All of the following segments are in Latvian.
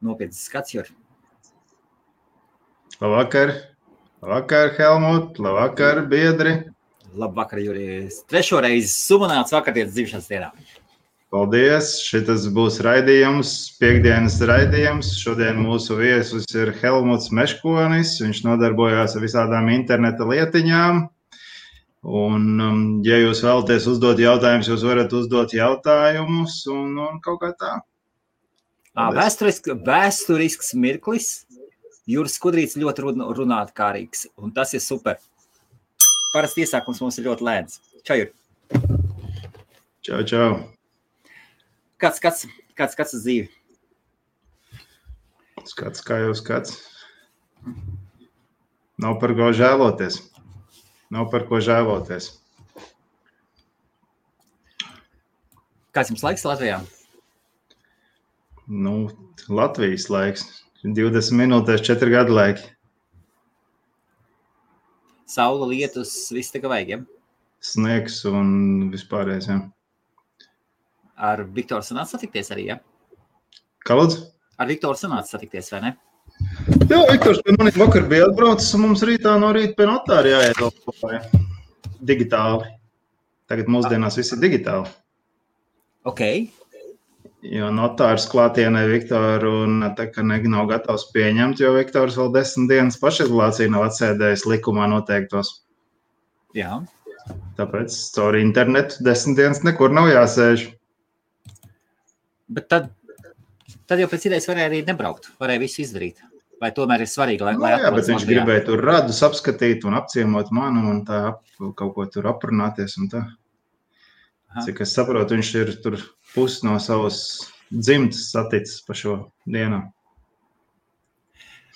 Nopietns skats, Jur. Labvakar, Helmut, labvakar, biedri. Labvakar, Juri. Trešo reizi sumanāts vakardienas dzimšanas dienā. Paldies, šitas būs raidījums, piekdienas raidījums. Šodien mūsu viesus ir Helmuts Meškonis, viņš nodarbojās ar visādām interneta lietiņām. Un, ja jūs vēlaties uzdot jautājumus, jūs varat uzdot jautājumus un kaut kā tā. Vēsturisks mirklis. Juris Skudrīts ļoti runātkārīgs, un tas ir super. Parasti iesākums mums ir ļoti lēns. Čau, Juri. Čau. Kāds uz dzīvi? Skats, kā jau skats. Nav par ko žēloties. Kāds jums laiks Latvijā? Latvijas laiks. 20 minūtēs 4 gadu laiki. Saula, lietus, viss tā kā vajag, ja? Sniegs un vispārējais, ja. Ar Viktoru sanāca satikties arī, ja? Kā lūdzu? Ar Viktoru sanāca satikties, vai ne? Jā, Viktors pie maniem vakar bija atbraucis, un mums rītā no rīta pie notāra jāiet digitāli. Tagad mūsdienās viss ir digitāli. Ok. Jo notārs klātienē Viktoru un tā kā nav gatavs pieņemt, jo Viktors vēl 10 dienas pašizolāciju nav atsēdējis likumā noteiktos. Jā. Tāpēc caur internetu 10 dienas nekur nav jāsēž. Bet tad jau pēc idejas varēja arī nebraukt, varēja visu izdarīt. Vai tomēr ir svarīgi, lai jā, bet viņš gribēja tur radus apskatīt un apciemot manu un tā kaut ko tur aprunāties un tā. Cik es saprotu, viņš ir tur pusi no savas dzimtas saticis pa šo dienu.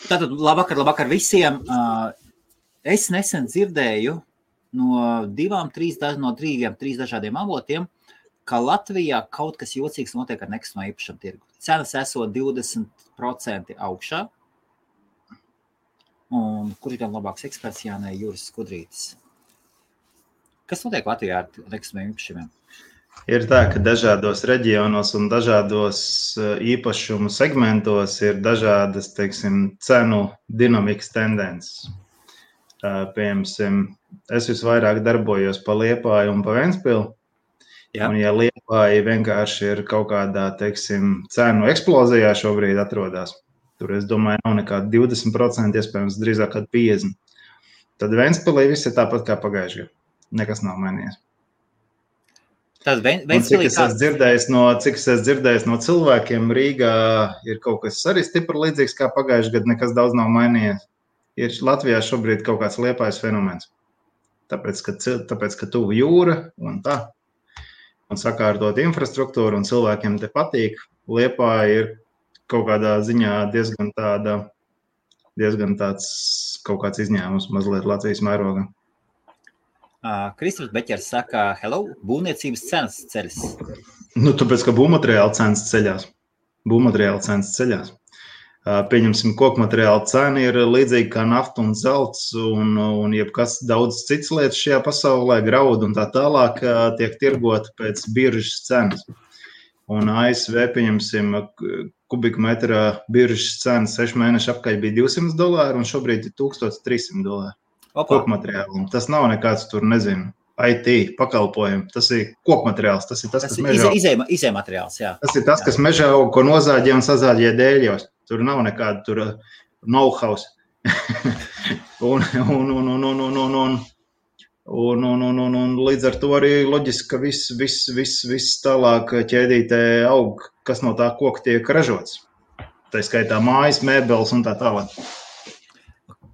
Tātad labvakar visiem. Es nesen dzirdēju no 3 dažādiem avotiem, ka Latvijā kaut kas jocīgs notiek ar nekustamo īpašumu tirgu. Cenas esot 20% augšā. Un kur ir gan labāks eksperts, Jānē Juris Skudrītis? Kas notiek Latvijā ar nekustamiem īpašumiem? Ir tā, ka dažādos reģionos un dažādos īpašumu segmentos ir dažādas, cenu dinamikas tendences. Piemēram, es visvairāk darbojos pa Liepāju un pa Ventspili. Jā. Un ja Liepāja vienkārši ir kaut kādā, cenu eksplozijā šobrīd atrodas, tur, es domāju, nav nekāda 20%, iespējams, drīzāk kāda 50%. Tad Ventspilī viss ir tāpat kā pagājušajā gadā. Nekas nav mainījies. Tad Ventspilī cik es dzirdējis no cilvēkiem, Rīgā ir kaut kas arī stipri līdzīgs kā pagājušajā gadā, nekas daudz nav mainījies. Ir Latvijā šobrīd kaut kāds Liepājas fenomens. Tāpēc, ka tuvu jūra un tā. Un sakārtot infrastruktūru, un cilvēkiem te patīk. Liepāja ir kaut kādā ziņā diezgan tāds kaut kāds izņēmums mazliet Latvijas mērogā. Kristofers Beķers saka, hello, būvniecības cenas ceļas. Tāpēc, ka būvmateriāla cenas ceļās. Pieņemsim, kokmateriāla cena ir līdzīga kā nafta un zelts un jebkas daudz cits lietas šajā pasaulē, graudu un tā tālāk tiek tirgota pēc biržas cenas. Un ASV, pieņemsim, kubikmetrā biržas cena 6 mēneši apkaļ bija $200 un šobrīd ir $1300 kokmateriālu. Tas nav nekāds tur, nezinu, IT pakalpojumi. Tas ir kokmateriāls, tas ir tas, kas mežā aug. Izējumateriāls, jā. Tas ir tas, kas mežā aug, ko nozāģē un sazāģē dēļos. Tur nav nekāda tur know-how. Un līdz ar to arī loģiski, ka viss tālāk ķēdītē aug, kas no tā koka tiek ražots. Tā skaitā mājas, mēbeles un tā tālāk.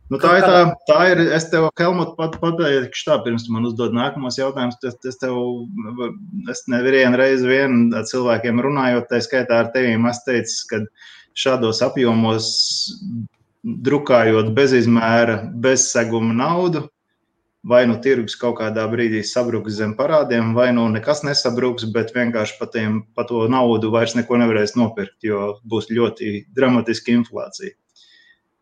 Tā ir, es tev, Helmut, pateikšu tā, pirms tu man uzdod nākamos jautājumus, es nevienu reizi cilvēkiem runājot, tā skaitā ar tevīm, es teicu, ka šādos apjomos drukājot bez izmēra, bez seguma naudu, vai nu tirgus kaut kādā brīdī sabruks zem parādiem, vai nu nekas nesabruks, bet vienkārši pa to naudu vairs neko nevarēs nopirkt, jo būs ļoti dramatiska inflācija.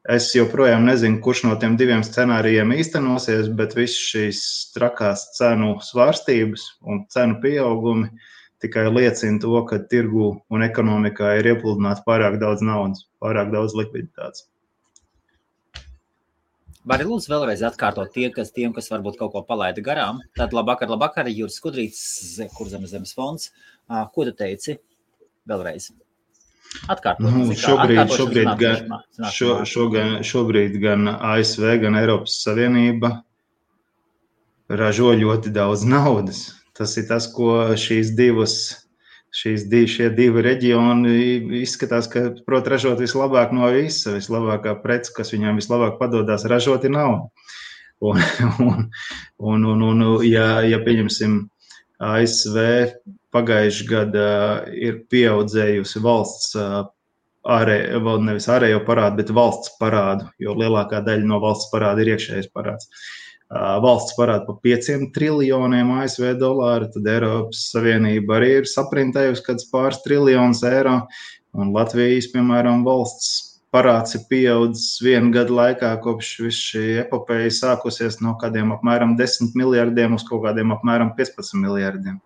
Es joprojām nezinu, kurš no tiem diviem scenārijiem īstenosies, bet viss šīs trakās cenu svārstības un cenu pieaugumi tikai liecina to, ka tirgu un ekonomikā ir iepludināts pārāk daudz naudas, pārāk daudz likviditātes. Vari lūdzu vēlreiz atkārtot tiem, kas varbūt kaut ko palaida garām. Tad labvakar, Juris Skudrīts, Kurzemes fonds. Ko tu teici? Vēlreiz. Atkārtot. Šobrīd gan ASV, gan Eiropas Savienība ražo ļoti daudz naudas. Tas ir tas, ko šie divi reģioni izskatās, ka prot ražot vislabāk no visa, vislabākā prece, kas viņām vislabāk padodās ražot, ir nauda. Ja pieņemsim ASV pagājuši gada ir pieaudzējusi valsts nevis ārējo parādu, bet valsts parādu, jo lielākā daļa no valsts parāda ir iekšējais parāds. Valsts parāda pa 5 triljoniem ASV dolāru, tad Eiropas Savienība arī ir saprintējusi kāds pāris triljonus eiro, un Latvijas, piemēram, valsts parāds ir pieaudzis 1 gadu laikā, kopš viss šī epopeja sākusies no kādiem apmēram 10 miljardiem uz kaut kādiem apmēram 15 miljardiem.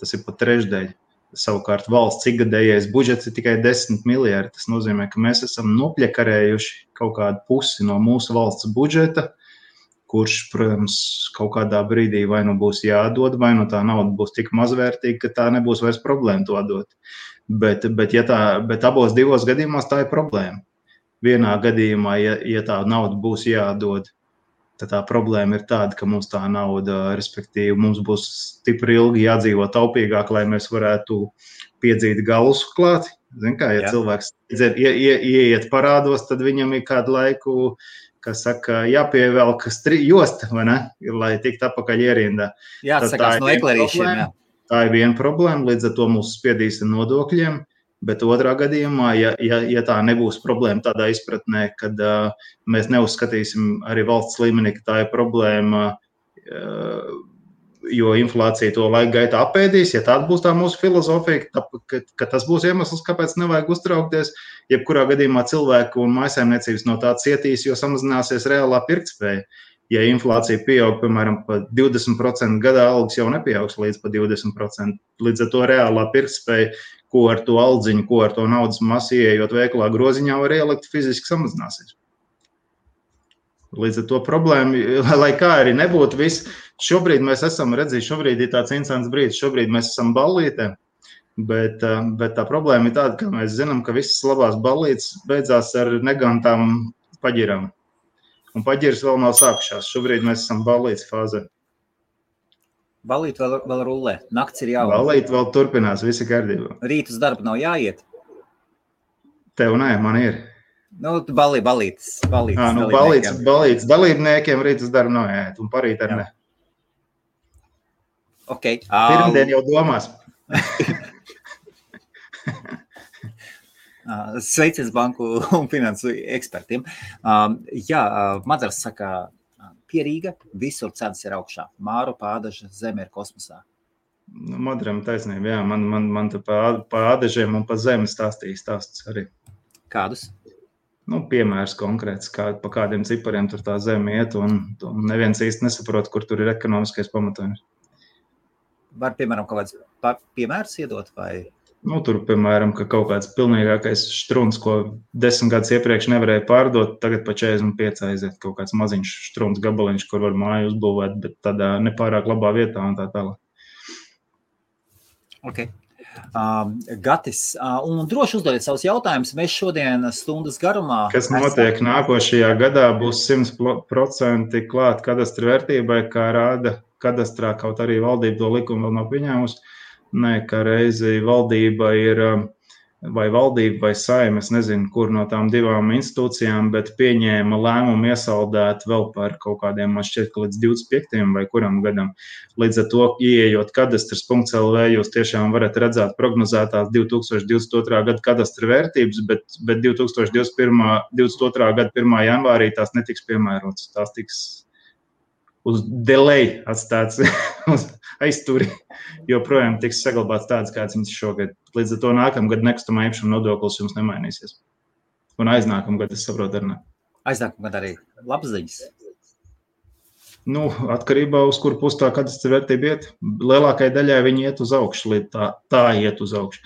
Tas ir pat trešdaļa. Savukārt valsts ikgadējais budžets ir tikai 10 miljardi. Tas nozīmē, ka mēs esam nopļakarējuši kaut kādu pusi no mūsu valsts budžeta, kurš, protams, kaut kādā brīdī vai nu būs jādod, vai nu tā nauda būs tik mazvērtīga, ka tā nebūs vairs problēma to dot. Bet abos divos gadījumos tā ir problēma. Vienā gadījumā, ja tā nauda būs jādod, tad tā problēma ir tāda, ka mums tā nauda, respektīvi, mums būs stipri ilgi jādzīvo taupīgāk, lai mēs varētu piedzīt galus klāt. Zin kā, ja cilvēks ieiet parādos, tad viņam ir kādu laiku, kas saka, jāpievelk josta, vai ne, lai tikt atpakaļ ierindā. Jāatsakās no eklerīšiem, jā. Tā ir viena problēma, līdz ar to mūs spiedīs ar nodokļiem, bet otrā gadījumā, ja tā nebūs problēma tādā izpratnē, kad mēs neuzskatīsim arī valsts līmenī, ka tā ir problēma, jo inflācija to laika gaitā apēdīs, ja tāda būs tā mūsu filozofija, ka tas būs iemesls, kāpēc nevajag uztraukties, jebkurā gadījumā cilvēku un mājsaimniecības no tā cietīs, jo samazināsies reālā pirktspēja. Ja inflācija pieaug, piemēram, pa 20% gadā, algas jau nepieaugs līdz pa 20%. Līdz ar to reālā pirktspēja, ko ar to aldziņu, ko ar to naudas masu ieejot veikalā groziņā var ielikt, fiziski samazināsies. Līdz ar to problēma, lai kā arī nebūtu viss, šobrīd mēs esam redzējuši, šobrīd ir tāds interesants brīdis, šobrīd mēs esam ballītē, bet tā problēma ir tāda, ka mēs zinām, ka visas labās ballītes beidzās ar negantām paģirām. Un paģiras vēl nav sākušās, šobrīd mēs esam ballītes fāzē. Ballīt vēl rullē, nakts ir jauna. Ballīt vēl turpinās, visi kārtībā. Rīt uz darbu nav jāiet? Tev nē, man ir. Nu, ballītes. Ballītes dalībniekiem rīt uz darbu nav jāiet, un parīt ar ne. Okay. Pirmdien jau domās. Sveiciens banku un finansu ekspertiem. Madars saka, pierīga, visur cenas ir augšā. Māru, Pādaža, zeme ir kosmosā. Madaram taisnība, jā. Man te pa ādažiem un pa zemi stāstīja stāsts arī. Kādus? Piemērs konkrēts, pa kādiem cipariem tur tā zeme iet, un neviens īsti nesaprot, kur tur ir ekonomiskais pamatojums. Var, piemēram, kaut kāds piemērs iedot vai? Tur, piemēram, ka kaut kāds pilnīgākais štruns, ko 10 gadus iepriekš nevarēja pārdot, tagad pa 45 aiziet kaut kāds maziņš štruns gabaliņš, kur var māju uzbūvēt, bet tādā nepārāk labā vietā un tā tālāk. Ok. Gatis, un droši uzdodiet savus jautājumus. Mēs šodien stundas garumā... Kas notiek nākošajā gadā, būs 100% klāt kadastra vērtībai, kā rāda kadastrā, kaut arī valdība to likumu vēl nav pieņēmusi. Nē, ka reizi valdība ir, vai Saeima, es nezinu, kur no tām divām institūcijām, bet pieņēma lēmumu iesaldēt vēl par kaut kādiem, man šķiet, ka līdz 25. vai kuram gadam. Līdz ar to, ieejot kadastras.lv, jūs tiešām varat redzēt prognozētās 2022. Gada kadastra vērtības, bet 2022. Gada 1. janvārī tās netiks piemērotas, tās tiks uz delay atstāts uz aizturi, jo projām tiks saglabāts tāds, kāds viņas šogad. Līdz ar to nākamgad nekustamā īpašuma nodoklis jums nemainīsies. Un aiznākamgad, es saprotu, arī ne. Aiznākamgad arī labas ziņas. Nu, atkarībā uz kuru pusi tā kadastra vērtība iet. Lielākai daļai viņi iet uz augšu, tā iet uz augšu.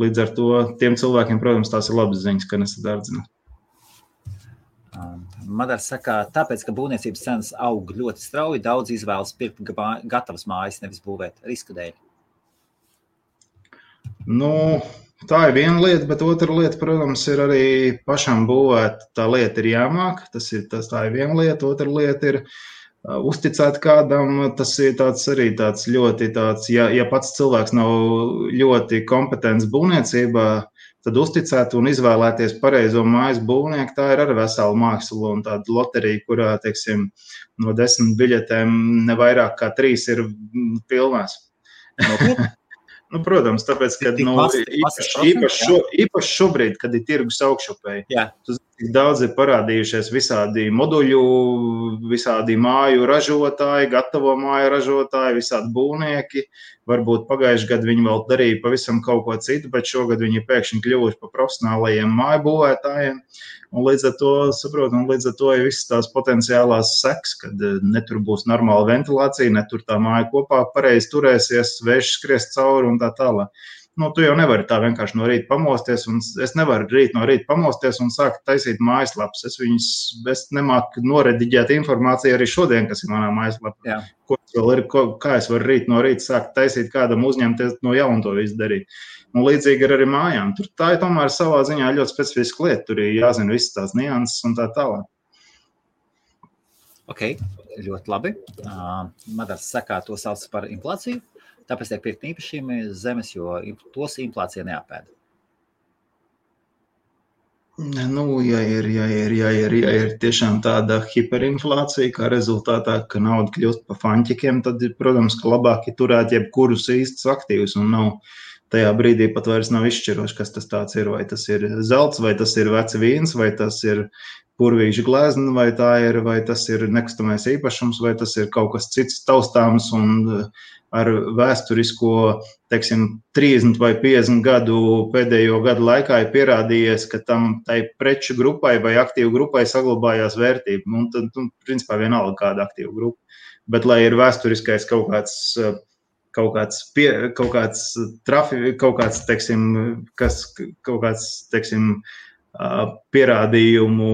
Līdz ar to tiem cilvēkiem, protams, tās ir labas ziņas, ka nesadārdzina. Madars saka, tāpēc, ka būvniecības cenas aug ļoti strauji, daudz izvēlas pirkt gatavas mājas, nevis būvēt risku dēļ. Nu, tā ir viena lieta, bet otra lieta, protams, ir arī pašam būvēt. Tā lieta ir jāmāk, tā ir viena lieta, otra lieta ir uzticēt kādam, tas ir arī tāds ļoti tāds, ja pats cilvēks nav ļoti kompetents būvniecībā, tad uzticēt un izvēlēties pareizo mājas būvnieku, tā ir arī vesela māksla un tāda loterija, kurā, teiksim, no 10 biļetēm ne vairāk kā 3 ir pilnās. Nu, protams, tāpēc, ka īpaši šobrīd, kad ir tirgus augšupēji, daudz ir parādījušies visādi moduļu, visādi māju ražotāji, gatavo māju ražotāji, visādi būvnieki. Varbūt pagājuši gadu viņi vēl darīja pavisam kaut ko citu, bet šogad viņi pēkšņi kļuvuši par profesionālajiem māju būvētājiem. Un līdz ar to, līdz ar to ir visas tās potenciālās seks, kad netur būs normāla ventilācija, netur tā māja kopā pareizi turēsies, vējš skries cauri un tā tālāk. Nu, tu jau nevari tā vienkārši no rīta pamosties, un es nevaru no rīta pamosties un sākt taisīt mājaslapas. Es nemāku norediģēt informāciju arī šodien, kas ir manā mājaslapā. Kā es varu rīt no rīta sākt taisīt kādam uzņemties no jauna to visu darīt. Un līdzīgi ar arī mājām. Tā ir tomēr savā ziņā ļoti specifiska lieta. Tur ir jāzina visas tās nianses un tā tālāk. Ok, ļoti labi. Madars saka, to sauc par inflāciju. Tāpēc tiek pirkt īpašiem zemes, jo tos inflācija neapēda. Nu, ja ir tiešām tāda hiperinflācija, kā rezultātā, ka nauda kļūst pa fanķikiem, tad, protams, ka labāk ir turēt jebkurus īstus aktīvus un nav tajā brīdī pat vairs nav izšķiroši, kas tas tāds ir, vai tas ir zelts, vai tas ir vecs vīns, vai tas ir purvīša glezna, vai tas ir nekustamais īpašums, vai tas ir kaut kas cits taustāms un ar vēsturisko, teiksim, 30 vai 50 gadu pēdējo gadu laikā ir pierādījies, ka tai preču grupai vai aktīvu grupai saglabājās vērtība. Un tad, principā, vienalga kāda aktīva grupa. Bet, lai ir vēsturiskais kaut kāds pierādījumu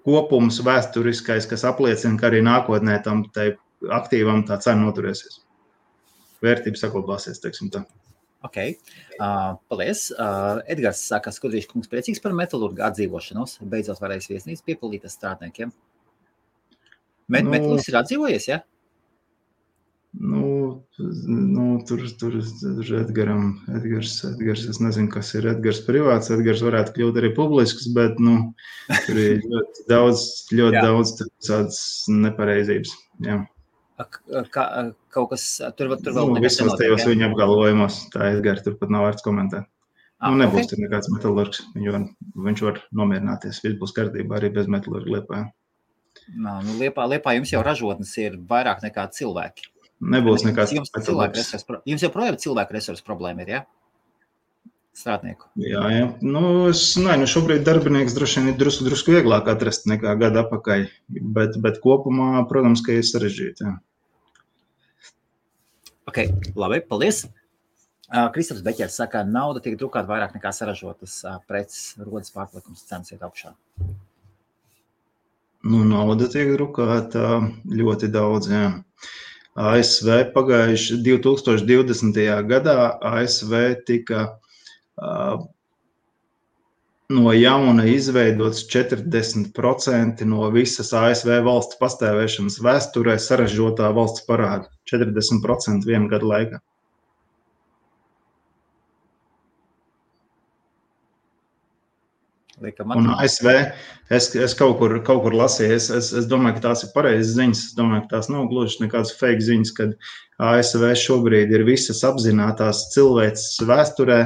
kopums vēsturiskais, kas apliecina, ka arī nākotnē tam tai aktīvam tā cena noturēsies. Vērtība saglabāsies, teiksim tā. Ok, paldies. Edgars saka, Skudrīša kungs priecīgs par metalurgu atdzīvošanos. Beidzot varēs viesnīcu piepildītas strādniekiem. Metalurgs ir atdzīvojies, ja? Tur Edgars, es nezinu, kas ir Edgars privāts. Edgars varētu kļūt arī publisks, bet, tur ir ļoti daudz tādas nepareizības, jā. Kaut kas tur vēl visos tajos viņa apgalvojumos, tā Edgars tur pat nav vērts komentēt. Nebūs tur nekāds metalurgs, viņš var nomierināties, viss būs kārtībā arī bez metalurga Liepājā. Liepā jums jau ražotnes ir vairāk nekā cilvēki. Nebūs nekāds metalurgs. Jums joprojām cilvēku resursu problēma ir, ja? Strādnieku. Jā. Šobrīd darbinieks droši vien ir drusku vieglāk atrast nekā gadu apakaļ, bet kopumā, protams, ka ir sarežģīti, jā. Ok, labi, paldies. Kristaps Beķers saka, nauda tiek drukāta vairāk nekā saražotas preces, rodas pārpalikums, cenas iet augšā. Nauda tiek drukāta ļoti daudz, jā. ASV pagājuši 2020. gadā ASV tika no jauna izveidots 40% no visas ASV valsts pastāvēšanas vēsturē saražotā valsts parāda. 40% vienu gadu laikā. Un ASV, es kaut kur lasīju, es domāju, ka tās ir pareizas ziņas, es domāju, ka tās nav gluži nekādas fake ziņas, kad ASV šobrīd ir visas apzinātās cilvēces vēsturē,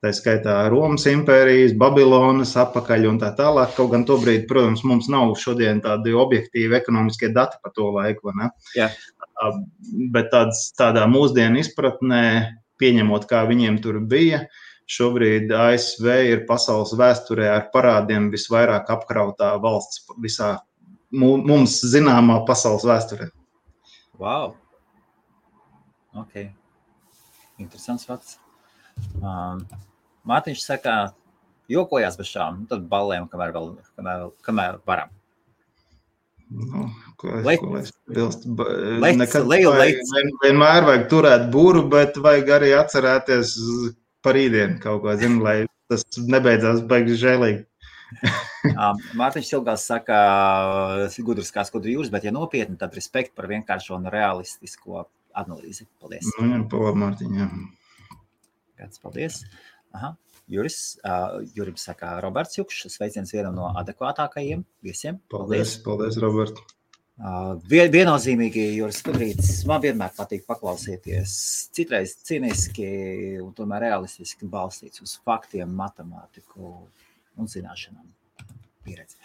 tā skaitā Romas impērijas, Babilonas apakaļ un tā tālāk. Kaut gan tobrīd, protams, mums nav šodien tādi objektīvi ekonomiskie dati par to laiku, vai ne? Jā. Bet tādā mūsdienu izpratnē, pieņemot, kā viņiem tur bija, šobrīd ASV ir pasaules vēsturē ar parādiem visvairāk apkrautā valsts visā mums zināmā pasaules vēsturē. Wow. Ok. Interesants fakts. Mārtiņš saka, jokojās bez šām, tad ballējam, kamēr varam. Nu, ko lai bilst? Vienmēr vajag turēt būru, bet vajag arī atcerēties par rītdienu kaut ko, lai tas nebeidzās baigi žēlīgi. Mārtiņš Silgās saka, gudrs kā skudru jūras, bet ja nopietni, tad respekt par vienkāršo un realistisko analīzi. Paldies. Paldies, Mārtiņ, jā. Kāds paldies. Aha. Jurim saka Roberts Jukšs, sveiciens vienam no adekvātākajiem viesiem. Paldies, Robert. Viennozīmīgi, Juris Skudrītis, man vienmēr patīk paklausieties, citreiz cīniski un tomēr realistiski balstīts uz faktiem, matemātiku un zināšanām. Pieredzi.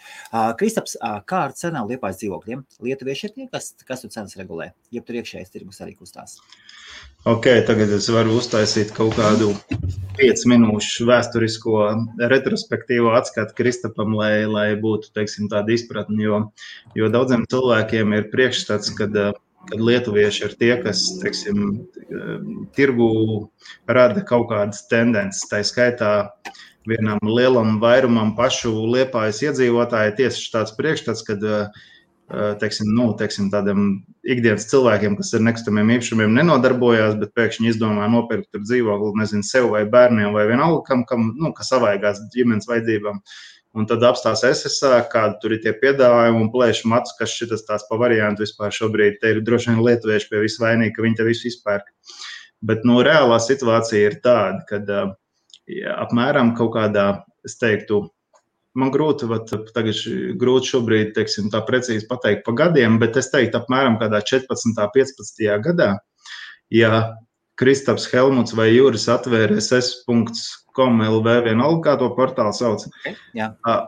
Kristaps, kā ar cenām Liepājas dzīvokļiem? Lietuvieši ir tie, kas tu cenas regulē? Jeb tur iekšējais tirgus arī kustās? Ok, tagad es varu uztaisīt kaut kādu 5 minūšu vēsturisko retrospektīvo atskatu Kristapam, lai būtu, teiksim, tāda izpratne, jo daudziem cilvēkiem ir priekšstats, kad lietuvieši ir tie, kas, teiksim, tirgu rada kaut kādas tendences, tā skaitā vienam lielam vairumam pašu Liepājas iedzīvotāji tieši tāds priekšstats, kad teiksim, tādiem ikdienas cilvēkiem, kas ar nekustamiem īpašumiem nenodarbojās, bet pēkšņi izdomā nopirkt tur dzīvokli, nezinu, sev vai bērniem vai vienalga, kas savaigās ģimenes vajadzībām. Un tad apstās SSA, kādi tur ir tie piedāvājumi un plēš matus, kas šitas tās pa variantu vispār šobrīd. Te ir droši vien lietuvieši pie visu vainīgi, ka viņi te visu izpērk. Bet, reālā situācija ir tāda, kad apmēram kaut kādā, es teiktu, man grūti šobrīd, teiksim, tā precīzi pateikt pa gadiem, bet es teiktu apmēram kādā 14. 15. gadā, ja Kristaps, Helmuts vai Juris atvēra ss.com LV vienalga, kā to portālu sauc,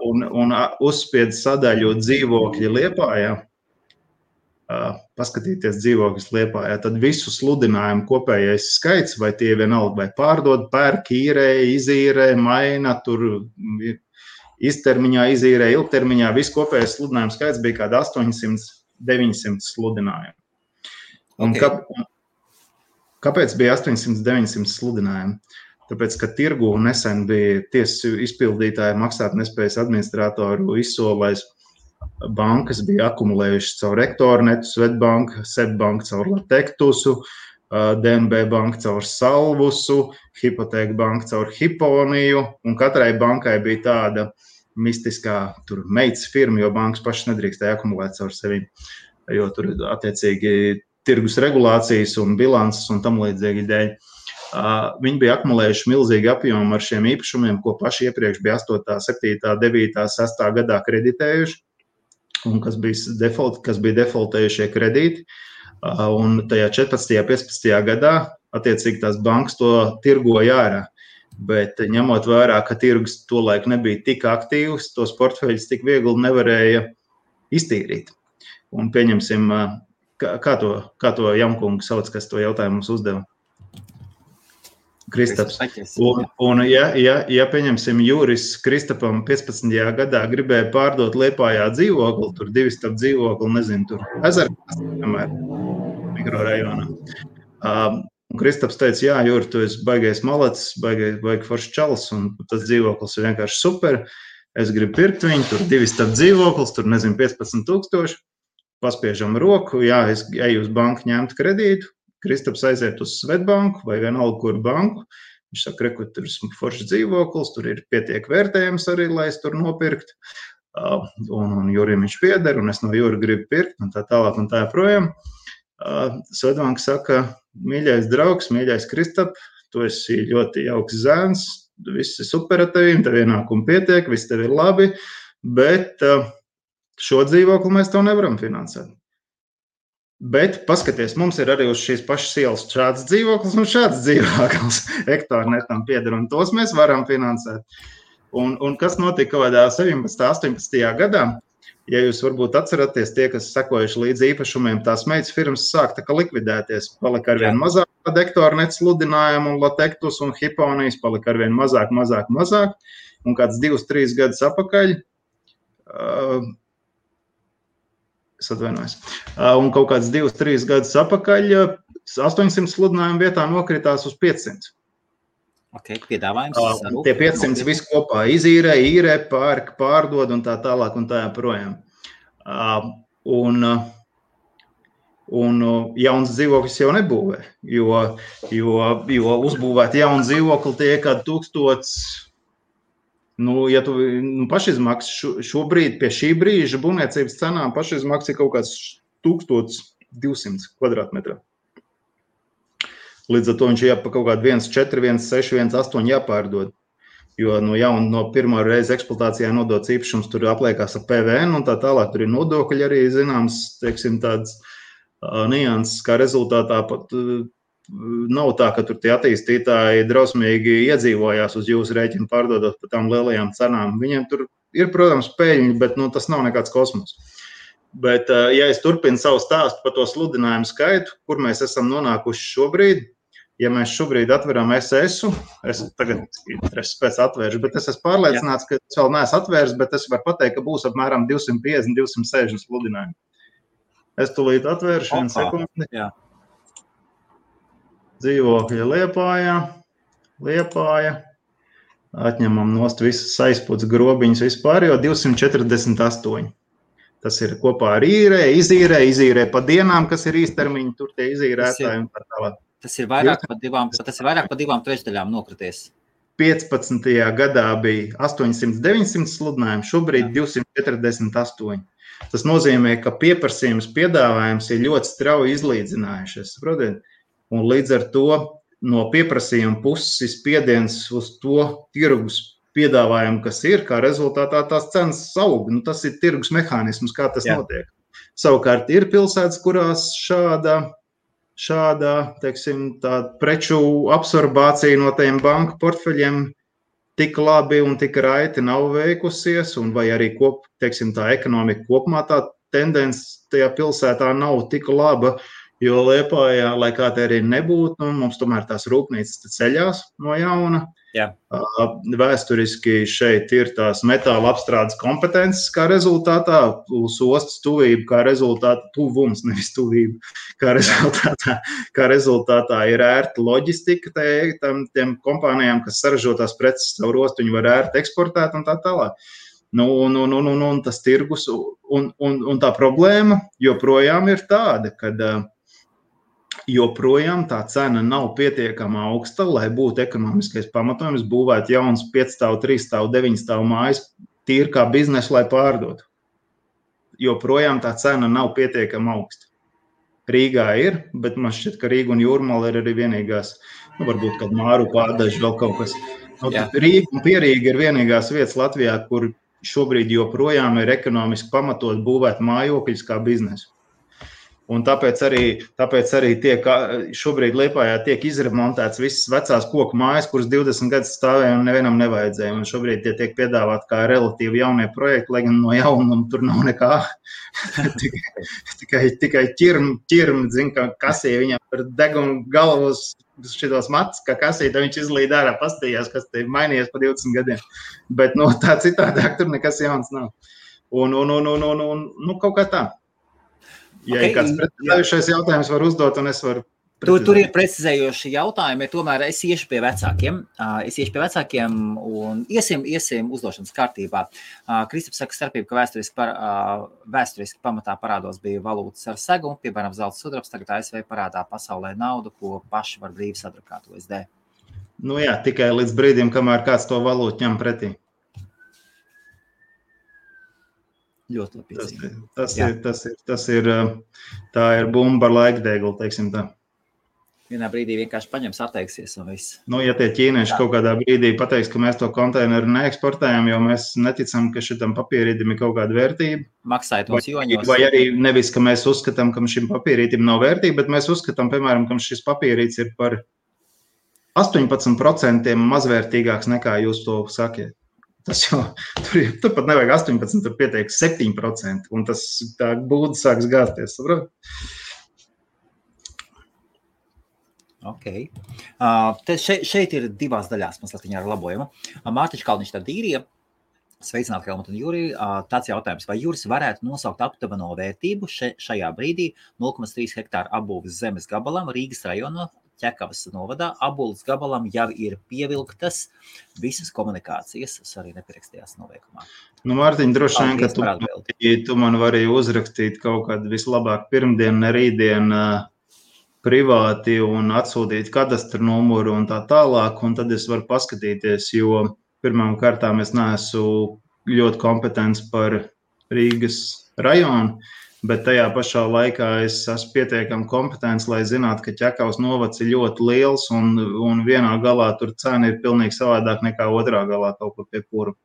un uzspied sadaļu dzīvokļi Liepājā, paskatīties dzīvokļus Liepājā, tad visu sludinājumu kopējais skaits, vai tie vienalga, vai pārdod, pērk, īrē, izīrē, maina, tur iztermiņā, izīrē, ilgtermiņā, viss kopējais sludinājumu skaits bija kāda 800-900 sludinājumu. Un kāpēc bija 800-900 sludinājumu? Tāpēc, ka tirgu nesen bija tiesas izpildītāji maksātnespējas administratoru izsolais, bankas bija akumulējušas caur Rektornetu, Svetbanka, Sebbanka caur Latektusu, DNB banka caur Salvusu, Hipoteka banka caur Hiponiju, un katrai bankai bija tāda mistiskā tur meitas firma, jo bankas pašas nedrīkstēja akumulēt caur sevi, jo tur attiecīgi tirgus regulācijas un bilances un tam līdzīgi dēļ. Viņi bija akumulējuši milzīgi apjomu ar šiem īpašumiem, ko paši iepriekš bija 8., 7., 9., 6. gadā kreditējuši, un kas bija defaultējušie kredīti. Un tajā 14. 15. gadā attiecīgi tās bankas to tirgoja ārā. Bet ņemot vērā, ka tirgus tolaik nebija tik aktīvs, tos portfeļus tik viegli nevarēja iztīrīt. Un pieņemsim, kā to Jamkungu sauc, kas to jautājumu mums uzdeva? Kristaps. Un ja pieņemsim Juris Kristapam 15. gadā gribēja pārdot Liepājā dzīvokli, tur 2 stāv dzīvokli, nezinu, tur Ezerkās, piemēram, mikrorajonā. Un Kristaps teica, jā, Juri, tu esi baigais malacis, baigi foršs čalis, un tas dzīvoklis ir vienkārši super. Es gribu pirkt viņu, tur 2 stāv dzīvoklis, tur, nezinu, 15 000, paspiežam roku, jā, es eju uz banku ņemt kredītu. Kristaps aiziet uz Svetbanku vai vienalga kuru banku. Viņš saka, reku, tur ir foršs dzīvoklis, tur ir pietiek vērtējums arī, lai es tur nopirkt. Un Jurim viņš pieder, un es no Jura gribu pirkt, un tā tālāk un tā joprojām. Svetbanka saka, mīļais draugs, mīļais Kristap, tu esi ļoti jauks zēns, viss ir super ar tevīm, tev ienākumi pietiek, viss tev ir labi, bet šo dzīvokli mēs tev nevaram finansēt. Bet paskaties, mums ir arī uz šīs pašas ielas šāds dzīvoklis un šāds dzīvoklis Rektornetam pieder, un tos mēs varam finansēt. Un kas notika kaut kādā 17. 18. gadā? Ja jūs varbūt atceraties, tie, kas sekojuši līdz īpašumiem, tās meitas firmas sāk tā kā likvidēties. Palika arvien mazāk Rektornet sludinājumu un Latektus un Hiponijas, palika arvien mazāk. Un kāds 2-3 gadus apakaļ Es atvainojos. Un kaut kāds 2-3 gadus atpakaļ 800 sludinājumu vietā nokritās uz 500. Okay, piedāvājums. Tie 500 visu kopā izīrē, pērk, pārdod un tā tālāk un tā joprojām. Un jauns dzīvoklis jau nebūvē, jo uzbūvēt jaunu dzīvokli tie kādi 1000, ja tu pašizmaksas šobrīd pie šī brīža būvniecības cenām pašizmaksas ir kaut kāds 1200 kvadrātmetrā. Līdz ar to viņš jāpa kaut kādu 1,4, 1,6, 1,8 jāpārdod. Jo no pirmā reize eksploatācijā nodots īpašums tur apliekās ar PVN un tā tālāk. Tur ir nodokļi arī zināms, teiksim, tāds nianses, kā rezultātā pat nav tā, ka tur tie attīstītāji drausmīgi iedzīvojās uz jūsu rēķinu pārdodot par tām lielajām cenām. Viņiem tur ir, protams, peļņi, bet tas nav nekāds kosmos. Bet, ja es turpinu savu stāstu par to sludinājumu skaitu, kur mēs esam nonākuši šobrīd, ja mēs šobrīd atveram SS-u, es tagad pēc atvēršu, bet es esmu pārliecināts, ka es vēl neesmu atvērs, bet es varu pateikt, ka būs apmēram 250, 260 sludinājumi. Es tūlīt atvēršu vienu sekundi. Jā. Dzīvokļa Liepāja. Atņemam nost visas aizputs grobiņas vispār, jo 248. Tas ir kopā ar izīrē pa dienām, kas ir īstermiņi, tur tie izīrētāji un tā tālāk. Tas ir vairāk pa 2/3 nokrities. 15. gadā bija 800-900 sludinājumi, šobrīd 248. Tas nozīmē, ka pieprasījums piedāvājums ir ļoti strauji izlīdzinājušies, saprotiet? Un līdz ar to no pieprasījuma puses spiediens uz to tirgus piedāvājumu, kas ir, kā rezultātā tās cenas aug. Tas ir tirgus mehānisms, kā tas notiek. Savukārt ir pilsētas, kurās šāda, teiksim, tā preču absorbācija no tiem banku portfeļiem tik labi un tik raiti nav veikusies, un vai arī teiksim, tā ekonomika kopumā tā tendence tajā pilsētā nav tik laba, jo Liepājā, lai kā te arī nebūtu, mums tomēr tās rūpnīcas ceļās no jauna. Jā. Vēsturiski šeit ir tās metāla apstrādes kompetences, kā rezultātā, uz ostas tuvība, kā rezultātā tuvums, nevis tuvība, kā rezultātā ir ērta loģistika tiem kompānijām, kas saražo tās preces caur ostu, viņi var ērti eksportēt un tā tālāk. Un tas tirgus un tā problēma joprojām ir tāda, kad joprojām tā cena nav pietiekama augsta, lai būtu ekonomiskais pamatojums būvēt jauns 5-stāvu, 3-stāvu, 9-stāvu mājas tīri kā biznesu, lai pārdotu. Joprojām tā cena nav pietiekama augsta. Rīgā ir, bet man šķiet, ka Rīga un Jūrmala ir arī vienīgās, varbūt kādu Māru pārdaži vēl kaut kas. Rīga un Pierīga ir vienīgās vietas Latvijā, kur šobrīd joprojām ir ekonomiski pamatot būvēt mājokļus kā biznesu. Un tāpēc arī šobrīd Liepājā tiek izremontēts visas vecās koku mājas, kuras 20 gadus stāvēja un nevienam nevajadzēja. Un šobrīd tie tiek piedāvāt kā relatīvi jaunie projekti, lai gan no jaunuma tur nav nekā. tikai ķirmi, zin, kā kasīja viņam par degunu galvos šitos matus, kā kasīja, tad viņš izlīd ārā pastījās, kas te mainījies pa 20 gadiem. Bet tā citādāk tur nekas jauns nav. Un kaut kā tā. Ja ir kāds precizējušais jautājums var uzdot, un es varu precizēt. Tur ir precizējoši jautājumi, tomēr es iešu pie vecākiem un iesim uzdošanas kārtībā. Kristaps saka starpību, ka vēsturiski pamatā parādos bija valūtas ar segu, piemēram, zelta sudrabs, tagad ASV parādā pasaulē naudu, ko paši var brīvi sadrukāt USD. Jā, tikai līdz brīdim, kamēr kāds to valūtu ņem pretī. Ļoti labi. Tā ir bumba ar laikdeglu, teiksim tā. Vienā brīdī vienkārši paņems, atteiksies un viss. Ja tie ķīnieši kaut kādā brīdī pateiks, ka mēs to konteineru neeksportējam, jo mēs neticam, ka šitam papīrītim ir kaut kāda vērtība. Maksājot mums joņos. Vai arī nevis, ka mēs uzskatām, ka šim papīrītim nav vērtība, bet mēs uzskatām, piemēram, ka šis papīrīts ir par 18% mazvērtīgāks nekā jūs to sakiet. Tas jau, tur pat nevajag 18, tur pietiek 7%, un tas tā būda sāks gāzties, saprot? Ok. Šeit ir divās daļās, mazliet viņa ar labojumu. Mārtiņš Kalniņš tad īrija, Sveicināti, Helmut un Juri. Tāds jautājums, vai Juris varētu nosaukt aptuveno vērtību šajā brīdī 0,3 hektāru apbūves zemes gabalam Rīgas rajonā, Ķekavas novadā. Apbūves gabalam jau ir pievilktas visas komunikācijas. Es arī nepierakstījās noveikumā. Nu, Mārtiņ, droši vien, ka tu man vari uzrakstīt kaut kādu vislabāk pirmdienu, ne rītdienu privāti un atsūtīt kadastru numuru un tā tālāk, un tad es varu paskatīties, jo pirmām kārtām es neesmu ļoti kompetents par Rīgas rajonu, bet tajā pašā laikā es esmu pietiekami kompetents, lai zinātu, ka Ķekavas novads ir ļoti liels un vienā galā tur cena ir pilnīgi savādāk nekā otrā galā kaut kur pie pura.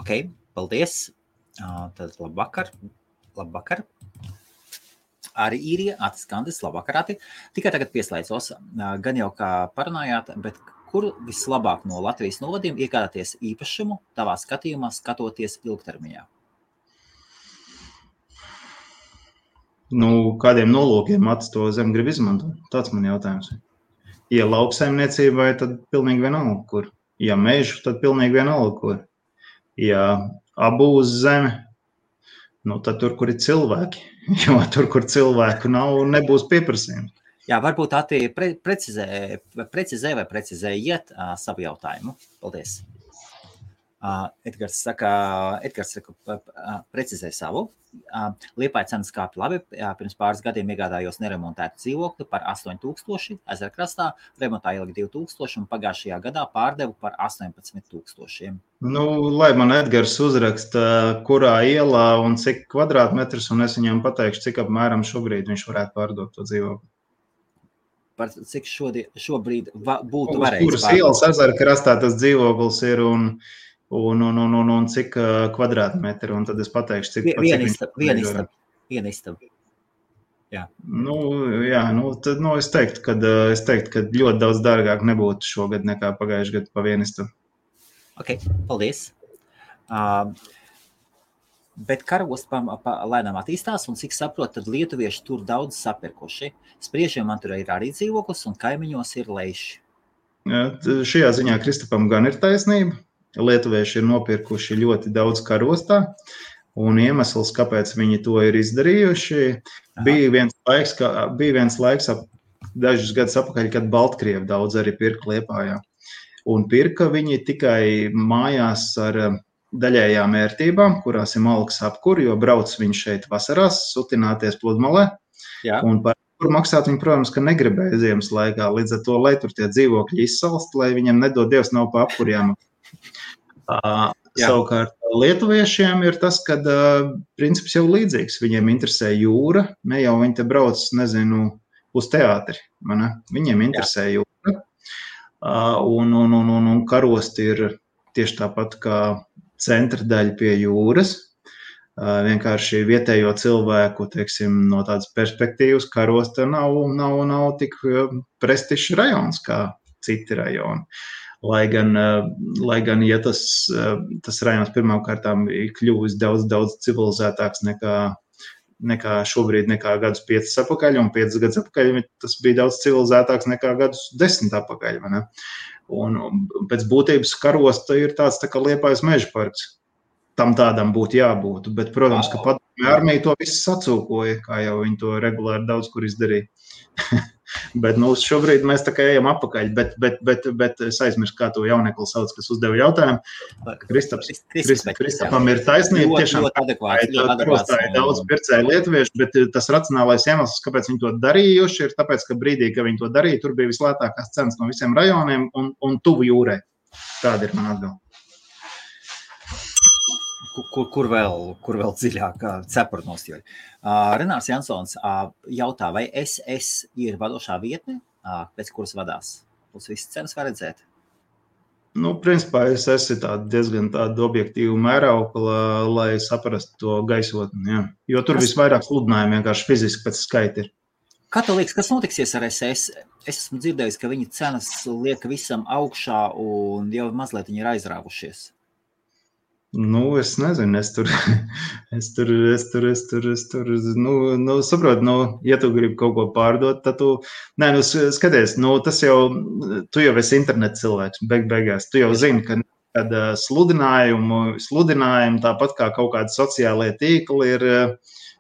Ok, paldies. Tad labvakar. Arī Īrija, Atis Kandis, labvakar, Ati. Tikai tagad pieslēdzos, gan jau kā parunājāt, bet kur vislabāk no Latvijas novadiem iegādāties īpašumu tavā skatījumā, skatoties ilgtermiņā? Nu, kādiem nolūkiem Atis to zem grib izmantot? Tāds man jautājums. Ja lauksaimniecībai, tad pilnīgi vienalga, kur. Ja mežu, tad pilnīgi vienalga, kur. Ja abūs zeme, nu, tad tur, kur ir cilvēki. Jo tur, kur cilvēku nav, nebūs pieprasījums. Jā, varbūt Ati precizē vai precizējiet savu jautājumu. Paldies. Edgars saka, precizē savu. Liepāja cenas kāpja labi. Pirms pāris gadiem iegādājos neremontētu dzīvokli par 8,000 Ezerkrastā, remontā ielika 2,000 un pagājušajā gadā pārdevu par 18,000. Nu, lai man Edgars uzraksta, kurā ielā un cik kvadrātmetrus, un es viņam pateikšu, cik apmēram šobrīd viņš varētu pārdot to dzīvokli. Par cik šobrīd būtu varējis pārdot. Kuras ielas Ezerkrastā tas dzīvoklis ir un cik kvadrātmetri, un tad es pateikšu, cik Viena istaba. Jā. Tad es teiktu, ka ļoti daudz dārgāk nebūtu šogad nekā pagājušajā gadu pa vienu istabu. Ok, paldies. Bet karosts lēnām attīstās, un cik saprot, tad lietuvieši tur daudz sapirkuši. Spriežiem man tur ir arī dzīvoklis, un kaimiņos ir leiši. Šajā ziņā Kristapam gan ir taisnība. Lietuvieši ir nopirkuši ļoti daudz karostā, un iemesls, kāpēc viņi to ir izdarījuši, bija viens laiks dažus gadus apakaļ, kad Baltkrievi daudz arī pirka Liepājā. Un pirka viņi tikai mājās ar daļējām ērtībām, kurās ir malks apkur, jo brauc viņš šeit vasarās sutināties pludmalē. Jā. Un par kur maksāt viņi, protams, ka negribēja ziemas laikā. Līdz ar to, lai tur tie dzīvokļi izsalst, lai viņiem nedod Dievs nav pa apkurjām. Savukārt lietuviešiem ir tas, kad princips jau līdzīgs. Viņiem interesē jūra, ne jau viņi te brauc, uz teātri. Viņiem interesē jūra. Un karosti ir tieši tāpat kā centra daļa pie jūras. Vienkārši vietējo cilvēku, no tādas perspektīvas, karosta nav tik prestižs rajons kā citi rajoni. Lai gan ja tas rajons pirmām kārtām ir kļuvis daudz civilizētāks nekā šobrīd, nekā gadus 5 apakaļ, un 5 gadus apakaļ tas bija daudz civilizētāks nekā gadus 10 apakaļ. Un pēc būtības karosta ir tāds tā kā Liepājas meža parks. Tam tādam būtu jābūt, bet, protams, ka padomju armija to visu sacūkoja, kā jau viņi to regulāri daudz kur izdarīja. Bet šobrīd mēs tā kā ejam apakaļ, bet es aizmirstu, kā to jaunekli sauc, kas uzdeva jautājumu. Kristapam ir taisnība, tiešām karostā ir daudz pircēju lietuviešu, bet tas racionālais iemesls, kāpēc viņi to darījuši, ir tāpēc, ka brīdī, kad viņi to darīja, tur bija vislētākās cenas no visiem rajoniem un tuvu jūrai. Tāda ir man atbilde. Kur vēl dziļāk cepurnos, jo. Renārs Jansons jautā, vai SS ir vadošā vietne, pēc kuras vadās? Uz visas cenas var redzēt? Principā SS ir diezgan tāda objektīva mēraukla, lai saprastu to gaisotni, jā. Jo tur visvairāk sludinājumi vienkārši fiziski pēc skaita ir. Kā tev liekas, kas notiksies ar SS? Es esmu dzirdējis, ka viņi cenas liek visam augšā un jau mazliet viņi ir aizrāvušies. Es nezinu, saprotu, ja tu gribi kaut ko pārdot, tad tu, skaties, tas jau, tu jau esi interneta cilvēks, beigās, tu jau zini, ka kad sludinājumi, tāpat kā kaut kādi sociālie tīkli, ir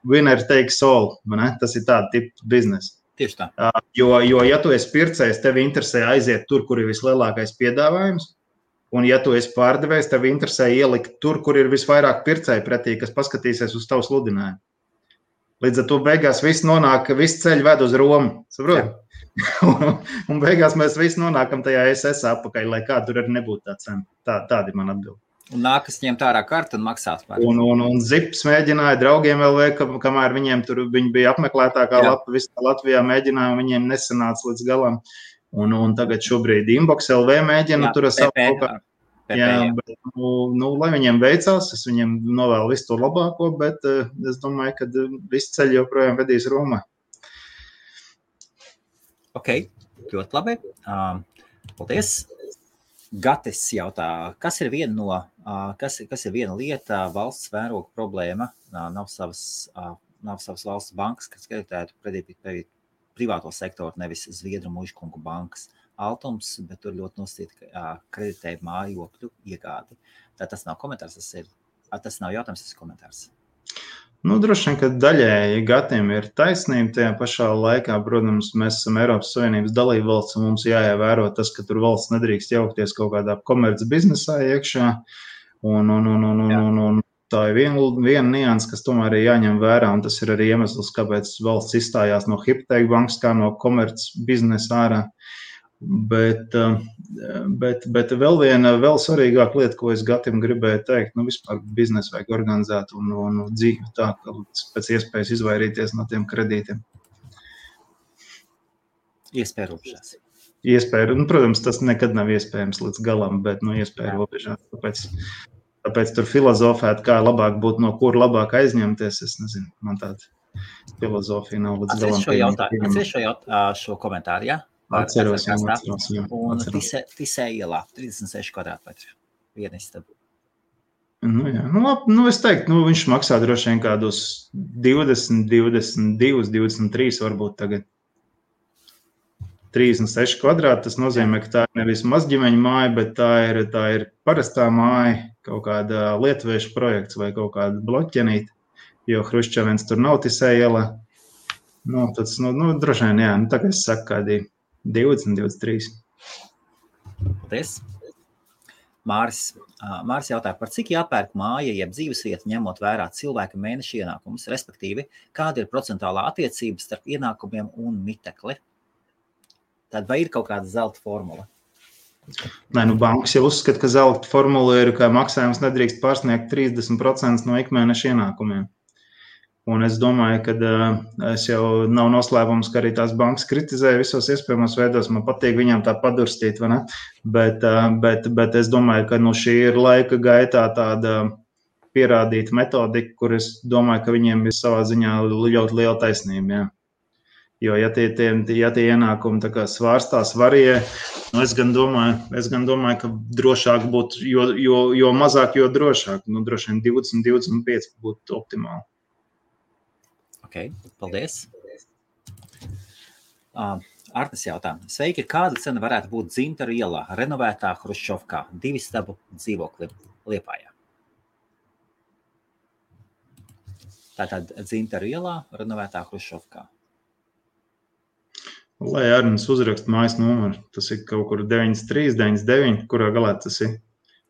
winner takes all. Ne? Tas ir tāda tipa biznesa. Tieši tā. Jo, ja tu esi pircējs, tev interesē aiziet tur, kur ir vislielākais piedāvājums, un ja tu esi pārdevējs, tev interesē ielikt tur, kur ir visvairāk pircēji pretī, kas paskatīsies uz tavu sludinājumu. Līdz ar to beigās viss ceļi ved uz Romu, saprot? Un beigās mēs visi nonākam tajā SS apakaļ, lai kā tur arī nebūtu tā cena. Tāda ir man atbilde. Un nākas ņemt ārā kartu un maksāt par. Un Zips mēģināja draugiem LV, kamēr viņi bija apmeklētākā lapa visā Latvijā mēģināja, un viņiem nesanāca līdz galam. Un tagad šobrīd Inbox LV mēģina tur savu kaut kā. Jā, bet, lai viņiem veicās, es viņiem novēlu visu to labāko, bet es domāju, ka visi ceļi joprojām vedīs Romā. Ok, ļoti labi. Paldies. Gatis jautā, kas ir viena lieta, valsts mēroga problēma, nav savas valsts bankas, kas kreditētu privāto sektoru, nevis Zviedru mužkungu bankas. Altums, bet tur ļoti nosacīta kreditēja mājokļu iegādi. Tā tas nav komentārs, tas nav jautājums, tas ir komentārs. Droši vien, ka daļēji Gatim ir taisnība tajā pašā laikā. Protams, mēs esam Eiropas Savienības dalībvalsts un mums jāievēro tas, ka tur valsts nedrīkst jaukties kaut kādā komerc biznesā iekšā. Un tā ir viena nianse, kas tomēr ir jāņem vērā, un tas ir arī iemesls, kāpēc valsts izstājās no Hypothēku bankas kā no komerc biznesa ārā. Bet vēl svarīgāka lieta, ko es Gatim gribēju teikt, vispār biznesu vajag organizēt un dzīvi tā, ka pēc iespējas izvairīties no tiem kredītiem. Iespēja robežās. Protams, tas nekad nav iespējams līdz galam, bet iespēja robežās. Tāpēc tur filozofēt, kā labāk būtu, no kur labāk aizņemties, es nezinu, man tāda filozofija nav līdz galam. Atceries šo komentāru, jā? Atceros. Un Tisē ielā, 36 kvadrātmetri, viena istaba. Es teiktu, viņš maksā droši vien kādus 20, 22, 23 varbūt tagad. 36 kvadrāti, tas nozīmē, ka tā ir nevis mazģimeņa māja, bet tā ir parastā māja, kaut kāda lietuviešu projekts vai kaut kāda bloķenīta, jo Hruščovens tur nav Tisē ielā. Tas, droši vien, jā, tā kā es saku, kādi 20, 23. Paldies. Māris jautā, par cik jāpērk māja, jeb dzīvesvieta, ņemot vērā cilvēka mēneša ienākumus, respektīvi, kāda ir procentuālā attiecība starp ienākumiem un mitekli? Tad vai ir kaut kāda zelta formula? Nē, bankas jau uzskata, ka zelta formula ir, ka maksājums nedrīkst pārsniegt 30% no ikmēneša ienākumiem. Un es domāju, ka es jau nav noslēpums, ka arī tās bankas kritizēja visos iespējamos veidos. Man patīk viņām tā padurstīt, vai ne? Bet es domāju, ka šī ir laika gaitā tāda pierādīta metodika, kur es domāju, ka viņiem ir savā ziņā ļoti liela taisnība. Jā. Jo, ja tie ienākumi tā kā svārstās varie, es gan domāju, ka drošāk būtu, jo mazāk, jo drošāk. Droši vien 20-25 būtu optimāli. Ok, paldies. Artis jautā. Sveiki, kāda cena varētu būt Dzintaru ielā, renovētā Hruščovkā, 2 stabu dzīvokli Liepājā? Tātad Dzintaru ielā, renovētā Hruščovkā. Lai Arnis uzrakst mājas numuru, tas ir kaut kur 93, 99, kurā galā tas ir.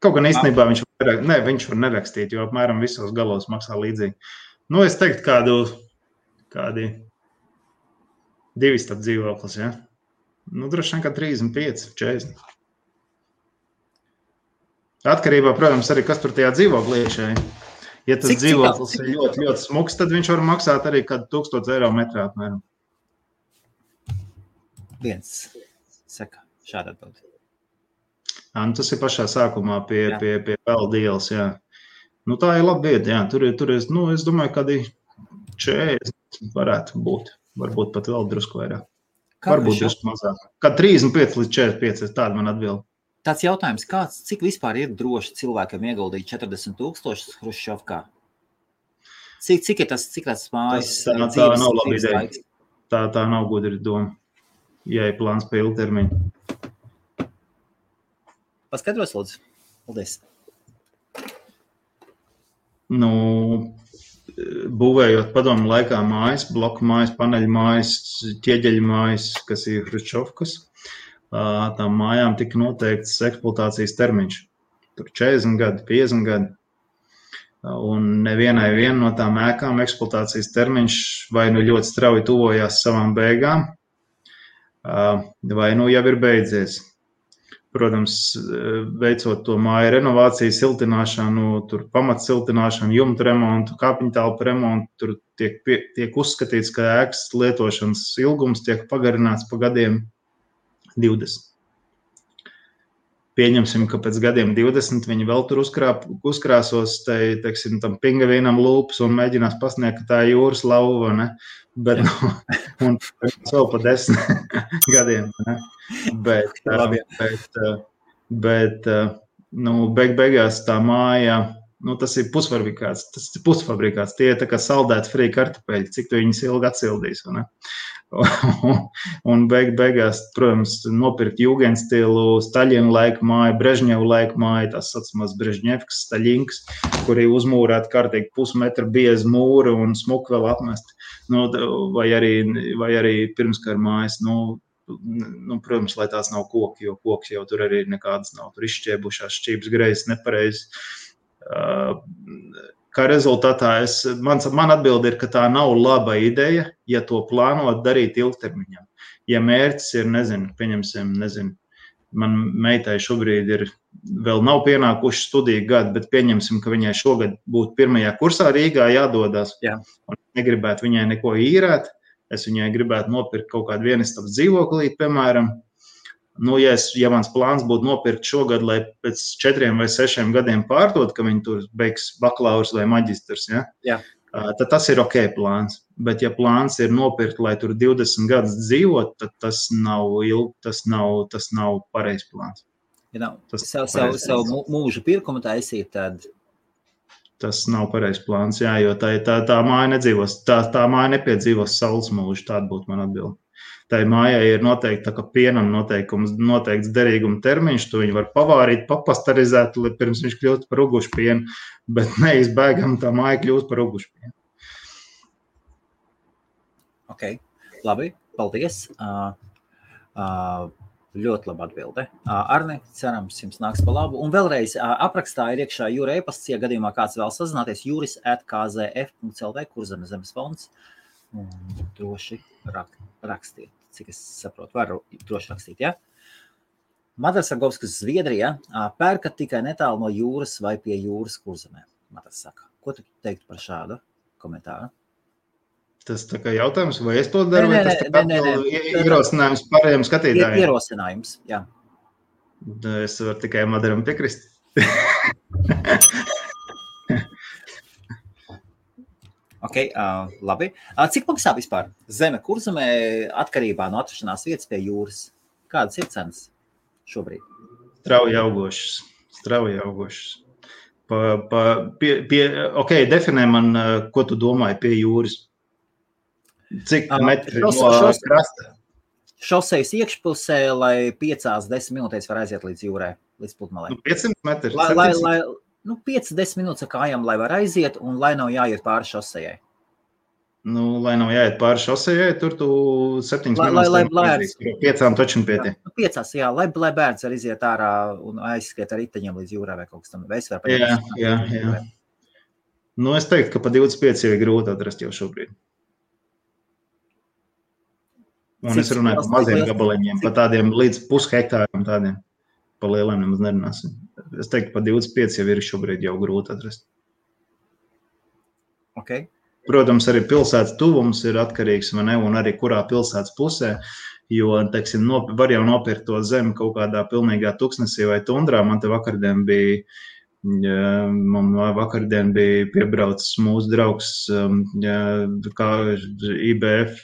Kaut gan īstenībā viņš var nerakstīt, jo apmēram visos galos maksā līdzīgi. Es teiktu kādi 2 stabu dzīvoklis, ja? Droši vien kā 35, 40. Atkarībā, protams, arī kas tur tajā dzīvoklī iekšā. Ja tas dzīvoklis ir ļoti, ļoti smuks, tad viņš var maksāt arī kādu 1000 eiro metrā apmēram. Viens saka šādu atbildi. Tas ir pašā sākumā pie peldu ielas, jā. Tā ir laba vieta, jā. Tur es domāju, kādi 40 varētu būt. Varbūt pat vēl drusku vairāk. Varbūt drusku mazāk. Kā 35 līdz 45, tāda man atbilda. Tāds jautājums, cik vispār ir droši cilvēkam ieguldīt 40 000 Hruščovkā? Cik ir tas mājas? Tā nav laba ideja. Tā nav gudra doma, ja ir plāns pa ilgtermiņu. Paskaidros, lūdzu. Paldies. Nu, būvējot padomu laikā mājas, bloku mājas, paneļu mājas, ķieģeļu mājas, kas ir hruščovkas, tām mājām tika noteikts eksploatācijas termiņš. Tur 40 gadi, 50 gadi. Un nevienai no tām ēkām eksploatācijas termiņš vai nu ļoti strauji tuvojās savām beigām, vai nu jau ir beidzies. Protams, veicot to māju renovāciju, siltināšanu, tur pamatsiltināšanu, jumtu remontu, kāpiņtelpu remontu, tur tiek uzskatīts, ka ēkas lietošanas ilgums tiek pagarināts pa gadiem 20. Pieņemsim, ka pēc gadiem 20 viņi vēl tur uzkrāsos, teiksim, tam pingavīnam lūpas un mēģinās pasniegt, ka tā ir jūras lauva, ne? Bet, un vēl pa 10 gadiem, ne? Bet beigās tā māja, tas ir pusfabrikāts, tie ir tā kā saldēti frī kartupeļi, cik tu viņus ilgi atsildīs, ne? Un beigās, protams, nopirkt Jugendstilu, Staļina laika māju, Brežņeva laika māju, tās saucamās Brežņevkas, Staļinkas, kuri uzmūrēt kārtīgi pusmetra biezi mūri un smuku vēl apmest. Vai arī pirmskara mājas, protams, lai tās nav koki, jo koks jau tur arī nekādas nav, tur izšķiebušās šķības greizes nepareizi. Kā rezultātā man atbilde ir, ka tā nav laba ideja, ja to plānot darīt ilgtermiņā. Ja mērķis ir, pieņemsim, man meitai šobrīd vēl nav pienākuši studiju gadi, bet pieņemsim, ka viņai šogad būtu pirmajā kursā Rīgā jādodās. Jā. Un negribētu viņai neko īrēt, es viņai gribētu nopirkt kaut kādu vienistabas dzīvoklī, piemēram. Ja mans plāns būtu nopirkt šogad, lai pēc 4 vai 6 gadiem pārdot, ka viņi tur beigs bakalaurs vai maģistrs, ja? Tad tas ir ok plāns. Bet ja plāns ir nopirkt, lai tur 20 gadus dzīvot, tad tas nav pareizs plāns. Ja savu mūža pirkumu taisīt, tad... Tas nav pareizs plāns, jā, jo tā māja nedzīvos, tā māja nepiedzīvos saules mūžu, tāda būtu man atbilde. Tai mājai ir noteikti, tā kā pienam noteikts derīguma termiņš, tu viņu var pavārīt, papasterizēt, pirms viņš kļūst par ugušu pienu, bet neizbēgam tā māja kļūst par ugušu pienu. Ok, labi, paldies. Ļoti laba atbilde. Arne, cerams, jums nāks pa labu. Un vēlreiz aprakstā ir iekšā jūra e-pasts, ja gadījumā kāds vēl sazināties, juris@kzf.lv, Kurzemes zemes fonds. Un droši rakstīt, cik es saprotu, varu droši rakstīt, ja? Madars Argovskas, Zviedrija, pērkat tikai netālu no jūras vai pie jūras Kurzemē? Madars saka, ko tu teiktu par šādu komentāru? Tas tā kā jautājums, vai es to daru, vai tas tā kā ierosinājums pārējiem skatītājiem? Ierosinājums, jā. Es varu tikai Madaram piekrist. Ok, labi. Cik maksā vispār zeme Kurzemē atkarībā no atrašanās vietas pie jūras? Kādas ir cenas šobrīd? Strauji augošas. Ok, definē man, ko tu domāji pie jūras. Cik metri no krasta? Šosejas iekšpusē, lai 5-10 minūtēs var aiziet līdz jūrai, līdz pludmalei. 500 metri? 5-10 minūtes ar kājām, lai var aiziet un lai nav jāiet pāri šosejai. Lai nav jāiet pāri šosejai, tur tu 7 minūtes 5 taču pietiek. 5, jā, lai bērns var iziet ārā un aizskriet ar riteņiem līdz jūrai vai kaut kas tam. Jā. Es teiktu, ka pa 25 jau ir grūti atrast jau šobrīd. Un es runāju par maziem gabaliņiem, pa tādiem līdz pushektāriem tādiem. Pa lieliem nemaz nerunāsim. Es teiktu, pa 25 jau ir šobrīd jau grūti atrast. Ok. Protams, arī pilsētas tuvums ir atkarīgs, vai ne, un arī kurā pilsētas pusē, jo, teiksim, var jau nopirkt to zemi kaut kādā pilnīgā tuksnesī vai tundrā. Man te vakardien bija piebraucis mūsu draugs, kā IBF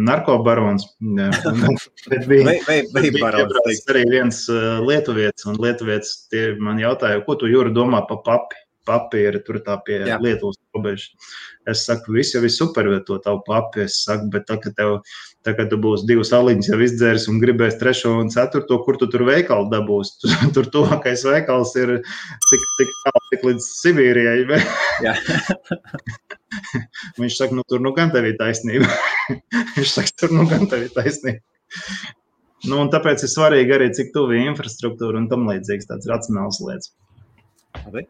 narkobarons. Piebraucis arī viens lietuvietis, un lietuvietis man jautāja, ko tu, Jūra, domā pa papi? papīra, tur tā pie Lietuvas robežas. Es saku, viss jau ir super, to tavu papi, es saku, bet kad tu būsi 2 aliņas jau izdzēris un gribēs 3. un 4., kur tu tur veikalu dabūs? Tur tuvākais veikals ir tik līdz Sibīrijai. Jā. Viņš saka, tur gan tev ir taisnība. Viņš saka, tur gan tev ir taisnība. Un tāpēc ir svarīgi arī, cik tuvi infrastruktūra un tam līdzīgs tāds racionāls lietas. Labi.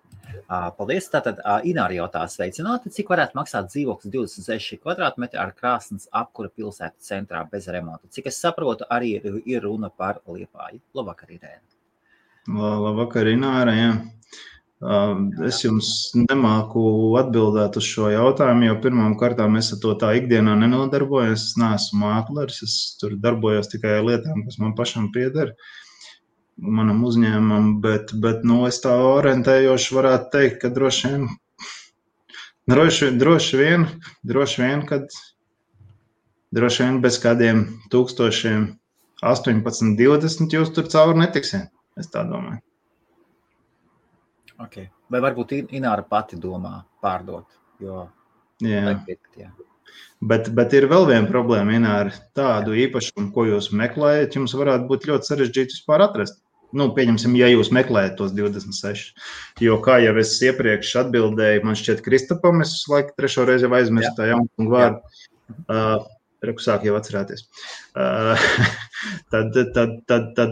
Paldies. Tātad Ināra jautā sveicināti. Cik varētu maksāt dzīvoklis 26 kvadrātmetri ar krāsnes apkura pilsētas centrā bez remonta? Cik es saprotu, arī ir runa par Liepāju. Labvakar, Irēna. Labvakar, Ināra, jā. Es jums nemāku atbildēt uz šo jautājumu, jo pirmām kārtām es ar to tā ikdienā nenodarbojos. Es neesmu mākleris, es tur darbojos tikai ar lietām, kas man pašam pieder, manam uzņēmumam, bet es tā orientējoši varētu teikt, ka droši vien bez kādiem 1000, 18, 20 jūs tur cauri netiksiet, es tā domāju. Okay. Vai varbūt Ināra pati domā pārdot? Jo jā. Bet ir vēl viena problēma, Ināra. Tādu īpašumu, ko jūs meklējat, jums varētu būt ļoti sarežģīti vispār atrast. Pieņemsim, ja jūs meklējat tos 26. Jo, kā jau es iepriekš atbildēju, man šķiet Kristapam, es laiku 3. reizi jau aizmirstu tā jaunu vārdu. Sāk jau atcerēties. Tad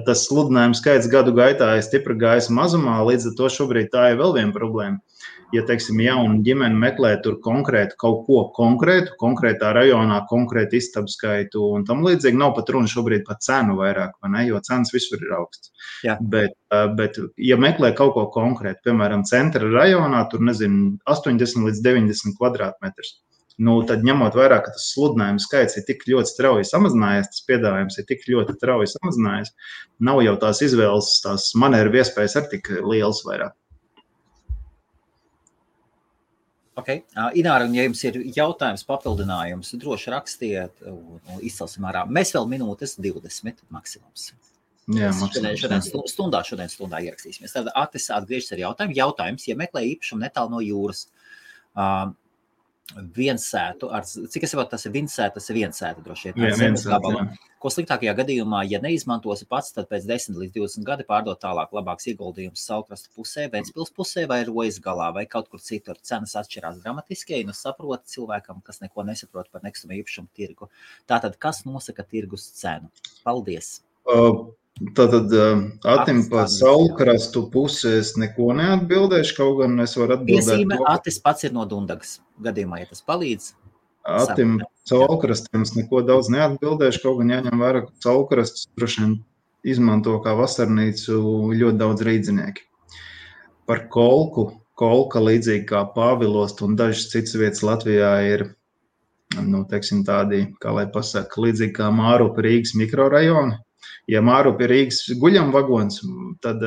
tas sludinājums skaits gadu gaitā ir stipri gājis mazumā, līdz ar to šobrīd tā ir vēl viena problēma. Ja, teiksim, jauna ģimene meklē tur konkrētu kaut ko konkrētā rajonā, konkrētu istabu skaitu un tam līdzīgi, nav pat runa šobrīd par cenu vairāk, vai ne, jo cenas visur ir augsts. Bet ja meklē kaut ko konkrētu, piemēram, centra rajonā, tur, 80 līdz 90 kvadrātmetrus, tad ņemot vērā, ka tas sludinājuma skaits ir tik ļoti strauji samazinājies, tas piedāvājums ir tik ļoti strauji samazinājies, nav jau tās izvēles, tās manevru iespējas arī tik lielas vairāk. Okay. Ināra, un ja jums ir jautājums, papildinājums, droši rakstiet un izcelsim ārā. Mēs vēl minūtes 20 maksimums. Jā, šodien stundā ierakstīsimies. Tad Atis atgriežas ar jautājumu. Jautājums, ja meklē īpašumu netālu no jūras, viensētu, cik es saprotu, tas ir viensēta droši vien, ar zemes gabalu. Ko sliktākajā gadījumā, ja neizmantosi pats, tad pēc 10 līdz 20 gadi pārdot tālāk labāks ieguldījums Saulkrastu pusē, Ventspils pusē vai Rojas galā vai kaut kur citur. Cenas atšķirās dramatiski, un saprot cilvēkam, kas neko nesaprot par nekustamo īpašumu tirgu. Tātad, kas nosaka tirgus cenu? Paldies! Tātad Atim pa Saulkrastu pusē es neko neatbildēšu, kaut gan es varu atbildēt. Piesīme, Atis pats ir no Dundagas gadījumā, ja tas palīdz. Atim Saulkrastiem es neko daudz neatbildēšu, kaut gan jāņem vērā, ka Saulkrastus droši vien izmanto kā vasarnīcu ļoti daudz rīdzinieki. Par Kolka līdzīgi kā Pāvilost un dažas citas vietas Latvijā ir, teiksim tādi, kā lai pasaka, līdzīgi kā Mārupa Rīgas mikrorajoni. Ja Mārupa ir Rīgas guļamvagons, tad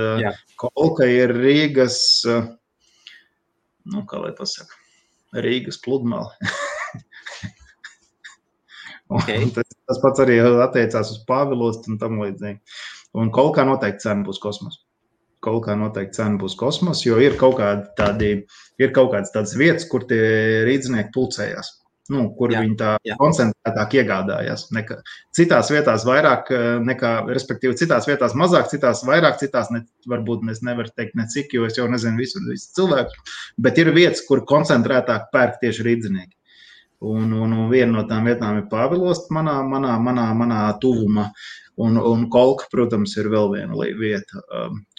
Kolka ir Rīgas, kā lai pasaka, Rīgas pludmale. Okay. Tas pats arī attiecās uz Pāvilostu un tam līdzīgi. Un Kolkā noteikti cena būs kosmos. Jo ir kaut kādas tādas vietas, kur tie rīdzinieki pulcējās. Kur viņi tā koncentrētāk iegādājās. Citās vietās vairāk nekā, respektīvi citās vietās mazāk, citās vairāk, citās varbūt es nevaru teikt necik, jo es jau nezinu visu cilvēku, bet ir vietas, kur koncentrētāk pērk tieši rīdzinieki. Un viena no tām vietām ir Pāvilost manā tuvumā. Un Kolka, protams, ir vēl viena vieta.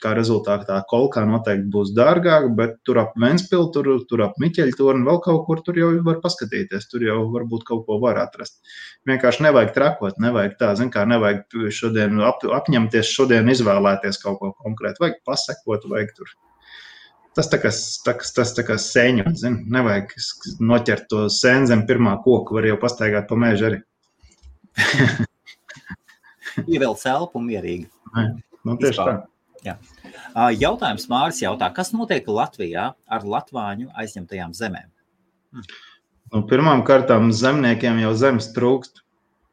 Kā rezultātā Kolkā noteikti būs dārgāk, bet tur ap Ventspilu, tur ap Miķeļtorni, vēl kaut kur tur jau var paskatīties. Tur jau varbūt kaut ko var atrast. Vienkārši nevajag trakot, nevajag tā, nevajag šodien apņemties, šodien izvēlēties kaut ko konkrētu. Vajag pasekot, vajag tur. Tas tā kā sēņot, nevajag noķert to sēni zem pirmā koka, var jau pastaigāt pa mežu arī. Ievēl celpu un mierīgi. Tieši tā. Jā. Jautājums Māris jautā, kas notiek Latvijā ar latvāņu aizņemtajām zemēm? Pirmām kārtām zemniekiem jau zemes trūkst.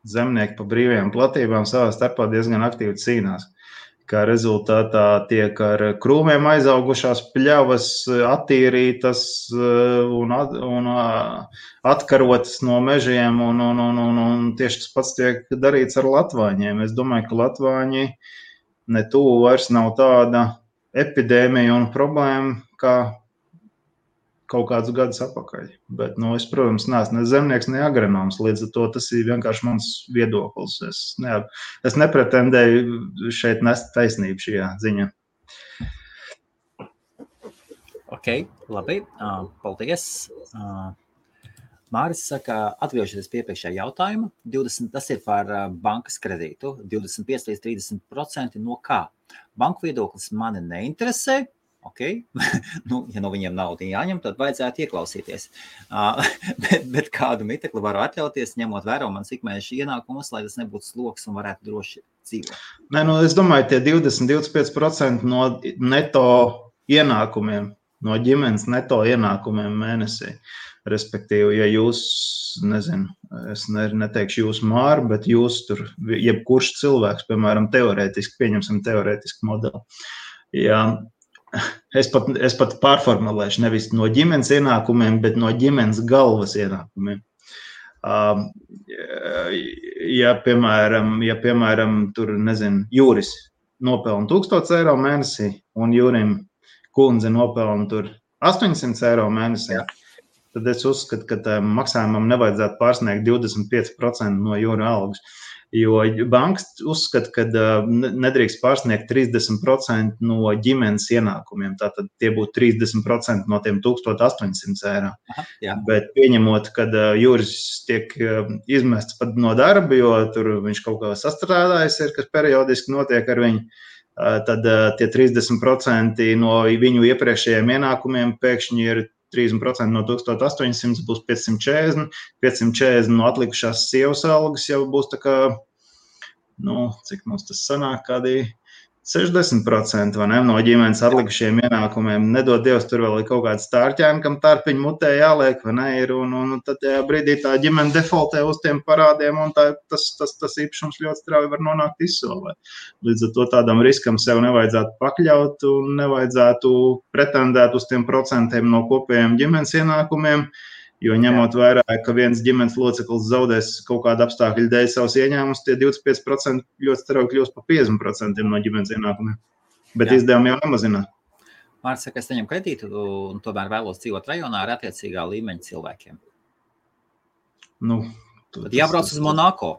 Zemnieki pa brīvajām platībām savā starpā diezgan aktīvi cīnās. kā rezultātā tiek ar krūmiem aizaugušās pļavas attīrītas un atkarotas no mežiem, un tieši tas pats tiek darīts ar latvāņiem. Es domāju, ka latvāņi ne tuvu vairs nav tāda epidēmija un problēma, kā kaut kādus gadus atpakaļ. Bet, es, protams, neesmu ne zemnieks, ne agronoms, līdz ar to tas ir vienkārši mans viedoklis. Es nepretendēju šeit nest taisnību šajā ziņā. Ok, labi, paldies. Māris saka, atgriežoties pie iepriekšējā jautājuma, 20, tas ir par bankas kredītu, 25 līdz 30% no kā? Banku viedoklis mani neinteresē. Ok, ja no viņiem naudu jāņem, tad vajadzētu ieklausīties. Bet kādu mitekli varu atļauties, ņemot vērā manas ikmēneša ienākumus, lai tas nebūtu sloks un varētu droši dzīvot? Nē, es domāju, tie 20-25% no neto ienākumiem, no ģimenes neto ienākumiem mēnesī. Respektīvi, ja jūs, es neteikšu jūs Māri, bet jūs tur, jebkurš cilvēks, piemēram, pieņemsim teorētiski modeli. Ja es pat pārformulēšu nevis no ģimenes ienākumiem, bet no ģimenes galvas ienākumiem. Ja, piemēram, tur, Jūris nopelna 1000 eiro mēnesī un Jūrim kundze nopelna tur 800 eiro mēnesī, tad es uzskatu, ka maksājumam nevajadzētu pārsniegt 25% no Jūra algas. Jo bankas uzskata, ka nedrīkst pārsniegt 30% no ģimenes ienākumiem. Tātad tie būtu 30% no tiem 1800 eiro. Aha, bet pieņemot, kad Jūris tiek izmests pat no darba, jo tur viņš kaut kā sastrādājis ir, kas periodiski notiek ar viņu, tad tie 30% no viņu iepriekšējiem ienākumiem pēkšņi ir 30% no 1800 būs 540 no atlikušās sievas algas jau būs tā kā, cik mums tas sanāk, kādi 60% vai ne, no ģimenes atlikušiem ienākumiem. Nedod Dievs, tur vēl ir kaut kāds stārķēni, kam tārpiņu mutē jāliek, vai ne, ir, un tad tajā brīdī tā ģimene defaultē uz tiem parādiem, un tas īpašums ļoti strauji var nonākt izsolē. Līdz ar to tādam riskam sev nevajadzētu pakļaut un nevajadzētu pretendēt uz tiem procentiem no kopējiem ģimenes ienākumiem, jo ņemot vērā, ka viens ģimenes loceklis zaudēs kaut kādu apstākļu dēļ savus ieņēmumus, tie 25% ļoti strauji kļūst par 50% no ģimenes ienākumiem. Bet izdevumi jau nemazinā. Māris saka, es saņemu kredītu un tomēr vēlos dzīvot rajonā ar attiecīgā līmeņa cilvēkiem. Tad jābrauc uz Monako.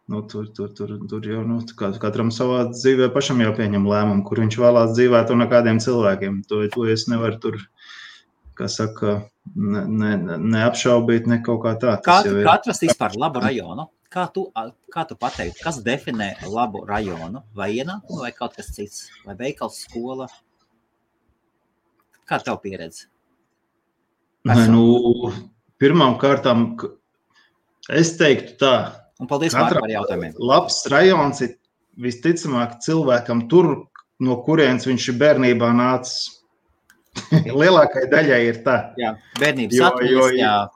Tur jau, katram savā dzīvē pašam jau pieņem lēmumu, kur viņš vēlās dzīvēt un ar kādiem cilvēkiem. To es nevaru tur, kā saka, neapšaubīt, ne kaut kā tā. Kā atrast vispār labu rajonu? Kā tu pateiktu, kas definē labu rajonu? Vai ienākumu, vai kaut kas cits? Vai veikals, skola? Kā tev pieredze? Pirmām kārtām, es teiktu tā. Un paldies Māri par jautājumiem. Labs rajons ir visticamāk cilvēkam tur, no kurienes viņš ir bērnībā nācis. Lielākai daļai ir tā. Jā, bērnības atmiņas,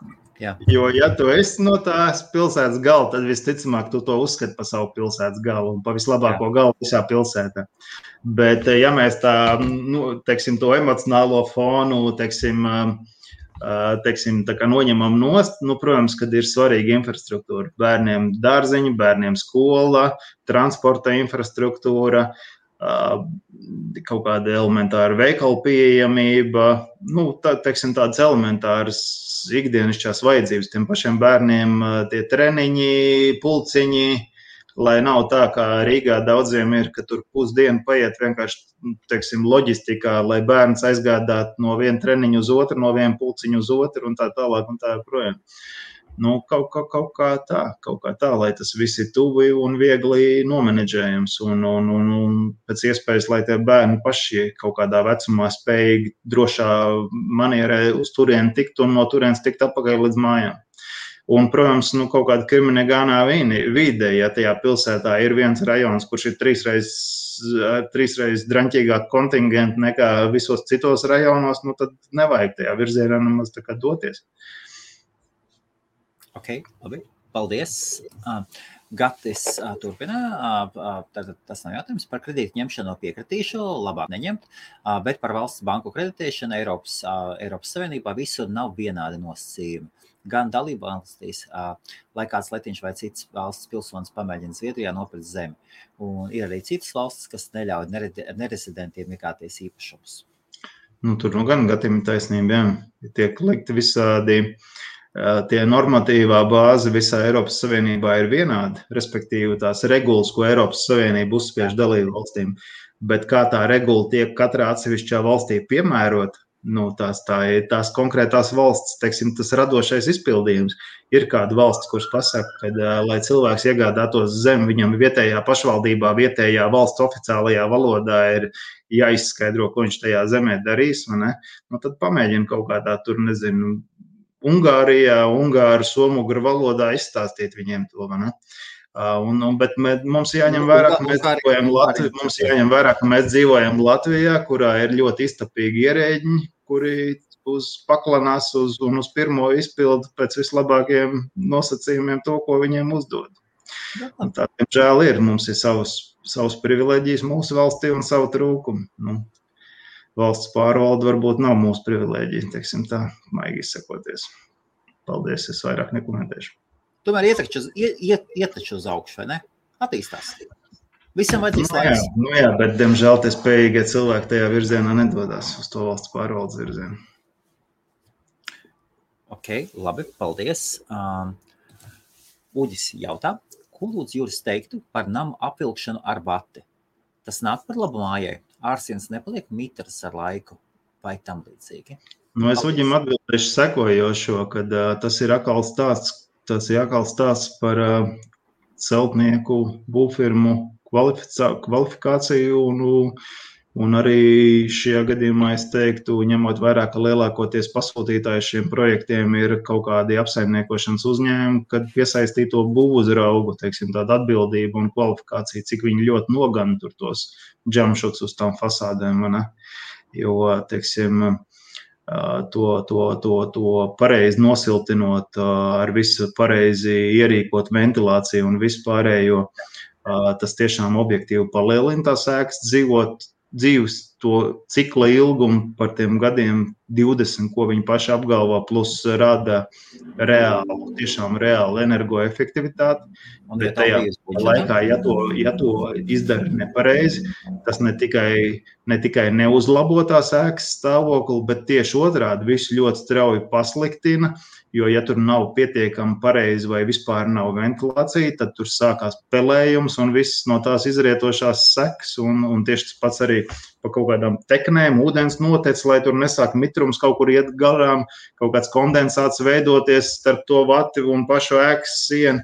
Jo, ja tu esi no tās pilsētas gala, tad visticamāk tu to uzskati par savu pilsētas galu un pa vislabāko galu visā pilsētā. Bet, ja mēs tā, teiksim, to emocionālo fonu, teiksim, tā kā noņemam nost, protams, kad ir svarīga infrastruktūra. Bērniem dārziņi, bērniem skola, transporta infrastruktūra, kaut kāda elementāra veikala pieejamība, teiksim, tādas elementāras ikdienišķās vajadzības tiem pašiem bērniem, tie treniņi, pulciņi, lai nav tā, kā Rīgā daudziem ir, ka tur pusdienu paiet vienkārši, teiksim, loģistikā, lai bērns aizgādātu no viena treniņa uz otru, no viena pulciņa uz otru un tā tālāk un tā projām. Kaut kā tā, lai tas viss ir tuvi un viegli nomenedžējams un pēc iespējas, lai tie bērni paši kaut kādā vecumā spējīgi drošā manierē uz turieni tikt un no turienes tikt atpakaļ līdz mājām. Un, protams, kaut kāda kriminegānā vide, ja tajā pilsētā ir viens rajons, kurš ir trīsreiz draņķīgāk kontingenti nekā visos citos rajonos, tad nevajag tajā virzienā nemaz tā kā doties. Ok, labi. Paldies. Gatis turpina, tas nav jautājums par kredītu ņemšanu piekritīšu, labāk neņemt, bet par valsts banku kreditēšanu Eiropas Savienībā visur nav vienādi nosacījumi. Gan dalībvalstīs, lai kāds letiņš vai cits valsts pilsonis pamēģina Zviedrijā nopirkt zemi. Un ir arī citas valstis, kas neļauj nerezidentiem iegāties īpašumus. Tur gan gadījumi taisnība, jā. Tiek likti visādi, tie normatīvā bāze visā Eiropas Savienībā ir vienāda, respektīvi tās regulas, ko Eiropas Savienība uzspiež dalību valstīm, bet kā tā regula tiek katrā atsevišķā valstī piemērot, tās konkrētās valsts, teiksim, tas radošais izpildījums. Ir kāda valsts, kuras pasaka, ka, lai cilvēks iegādātos zemi, viņam vietējā pašvaldībā, vietējā valsts oficiālajā valodā ir jāizskaidro, ko viņš tajā zemē darīs, vai ne? Tad pamēģina kaut kādā tur, nezinu, Ungārijā, ungāru, somugru valodā izstāstīt viņiem to, vai ne? Bet mums jāņem vērā, ka mēs dzīvojam Latvijā, kurā ir ļoti iztapīgi ierēģiņi, kuri paklanās un uz pirmo izpildu pēc vislabākajiem nosacījumiem to, ko viņiem uzdod. Tā, diemžēl, ir. Mums ir savas privileģijas mūsu valstī un savu trūkumu. Valsts pārvalde varbūt nav mūsu privileģija, teiksim tā, maigi izsakoties. Paldies, es vairāk nekomentēšu. Tomēr iet taču uz augšu, vai ne? Attīstās. Visam vajadzīs laiks. Jā, bet, diemžēl, tie spējīgie cilvēki tajā virzienā nedodās uz to valsts pārvaldes virzienu. Ok, labi, paldies. Uģis jautā, ko lūdzu Juris teiktu par namu apvilkšanu ar bati? Tas nāk par labu mājai. Ārsienas nepaliek mitras ar laiku vai tam līdzīgi? Es Uģim atbildēšu sekojošo, kad tas ir atkal stāsts par celtnieku būvfirmu kvalifikāciju un arī šajā gadījumā es teiktu, ņemot vērā, ka lielākoties pasūtītāji šiem projektiem ir kaut kādi apsaimniekošanas uzņēmumi, kad piesaistīto būvuzraugu, teiksim, tāda atbildība un kvalifikācija, cik viņi ļoti nogana tur tos džamšots uz tām fasādēm, ne? Jo, teiksim, to pareizi nosiltinot, ar visu pareizi ierīkot ventilāciju un visu pārējo, tas tiešām objektīvi palielina tās ēkas dzīves to cikla ilgumu par tiem gadiem 20, ko viņi paši apgalvo, plus rada tiešām reāli energoefektivitāti. Bet tajā laikā, ja to izdara nepareizi, tas ne tikai neuzlabo tās ēkas stāvokli, bet tieši otrādi visu ļoti strauji pasliktina, jo ja tur nav pietiekami pareizi vai vispār nav ventilācija, tad tur sākās pelējums un viss no tās izrietošās sekas un tieši tas pats arī pa kaut kādām teknēm, ūdens notec, lai tur nesāk mitrums kaut kur iet garām, kaut kāds kondensāts veidoties starp to vati un pašu ēkas sienu.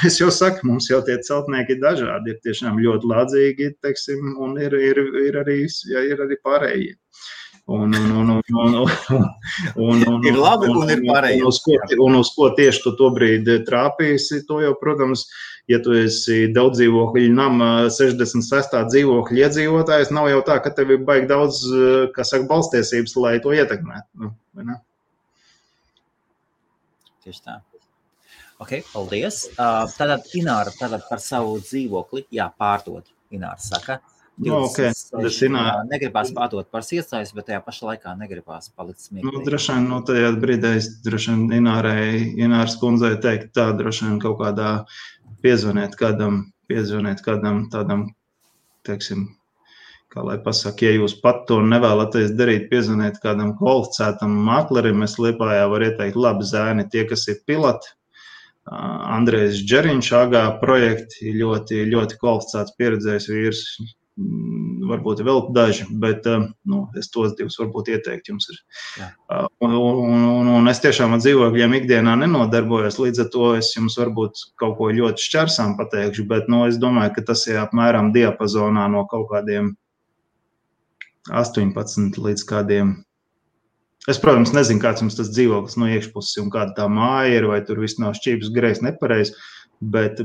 Es jau saku, mums jau tie celtnieki ir dažādi, ir tiešām ļoti lādzīgi, teiksim, un ir arī pārējie. Ir labi un ir pārējie. Un uz ko tieši tu to brīdi trāpīsi, to jau, protams, ja tu esi daudz dzīvokļu nama 66. dzīvokļu iedzīvotājs, nav jau tā, ka tev ir baigi daudz, balstiesības, lai to ietekmētu. Tieši tā. Ok, paldies. Tātad Ināra par savu dzīvokli, pārdod, Ināra saka. Negribās pārdot par iestājas, bet tajā pašā laikā negribās palikt smieklīgi. Droši vien, tajā brīdī es Ināras kundzei teikt tā, droši vien kaut kādā piezvaniet kādam tādam, teiksim, kā lai pasaka, ja jūs pat to nevēlaties darīt, piezvaniet kādam kvalificētam maklerim, es Liepājā varu ieteikt labi zēni, tie, kas ir piloti, Andrejs Džeriņš, AGA projekti, ļoti, ļoti kvalificēts pieredzējis vīrs, varbūt vēl daži, bet es tos divus varbūt ieteiktu jums ir. Un es tiešām ar dzīvokļiem ikdienā nenodarbojos, līdz ar to es jums varbūt kaut ko ļoti šķersām pateikšu, bet es domāju, ka tas ir apmēram diapazonā no kaut kādiem 18 līdz kādiem. Es, protams, nezinu, kāds jums tas dzīvoklis no iekšpuses un kāda tā māja ir, vai tur viss nav šķības grejs nepareiz, bet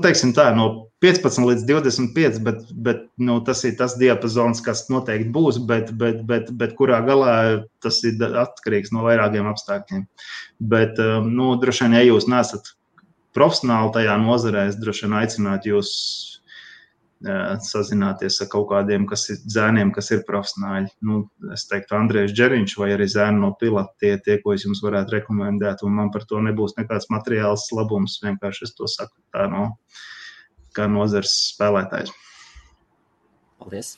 teiksim tā, no 15 līdz 25, bet tas ir tas diapazons, kas noteikti būs, bet kurā galā tas ir atkarīgs no vairākiem apstākļiem. Bet, droši vien, ja jūs nesat profesionāli tajā nozarē, es droši vien aicinātu jūs sazināties ar kaut kādiem zēniem, kas ir profesionāļi. Es teiktu, Andrejs Džeriņš vai arī zēni no Pilata, tie, ko es jums varētu rekomendēt, un man par to nebūs nekāds materiāls labums, vienkārši es to saku tā kā nozars spēlētājs. Paldies.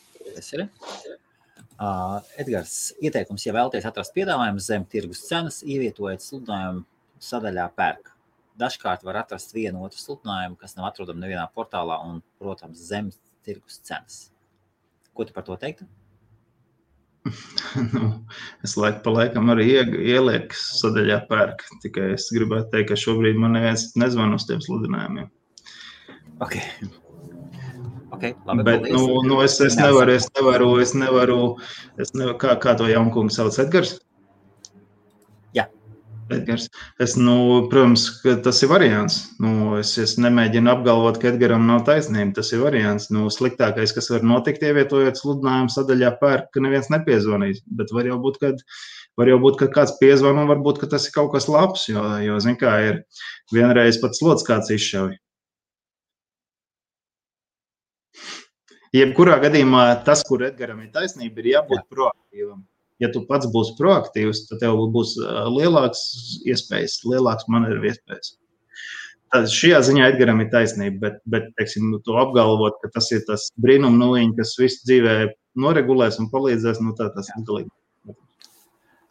Edgars, ieteikums, ja vēlaties atrast piedāvājumus zem tirgus cenas, ievietojiet sludinājumu sadaļā pērk. Dažkārt var atrast vienu otru sludinājumu, kas nav atrodama nevienā portālā un, protams, zem tirgus cenas. Ko tu par to teiktu? Es laiku pa laikam arī ielieku sadaļā pērk, tikai es gribētu teikt, ka šobrīd man neviens nezvan uz tiem sludinājumiem. Ok, labi, bet, es nevaru, kā to jaunkungu sauc, Edgars? Edgars. Protams, ka tas ir variants. Es nemēģinu apgalvot, ka Edgaram nav taisnība. Tas ir variants. Sliktākais, kas var notikt, ievietojot sludinājumu sadaļā pērk, ka neviens nepiezvanīs. Bet var jau būt, ka kāds piezvan un varbūt, ka tas ir kaut kas labs, jo zin kā, ir vienreiz pat slods kāds izšauj. Jebkurā gadījumā tas, kur Edgaram ir taisnība, ir jābūt proaktīvam. Ja tu pats būsi proaktīvs, tad tev būs lielāks iespējas, lielāks manevru iespējas. Tad šajā ziņā Edgaram ir taisnība, bet teiksim, to apgalvot, ka tas ir tas brīnum nuliņi, kas visu dzīvē noregulēs un palīdzēs, tas ir galīgi.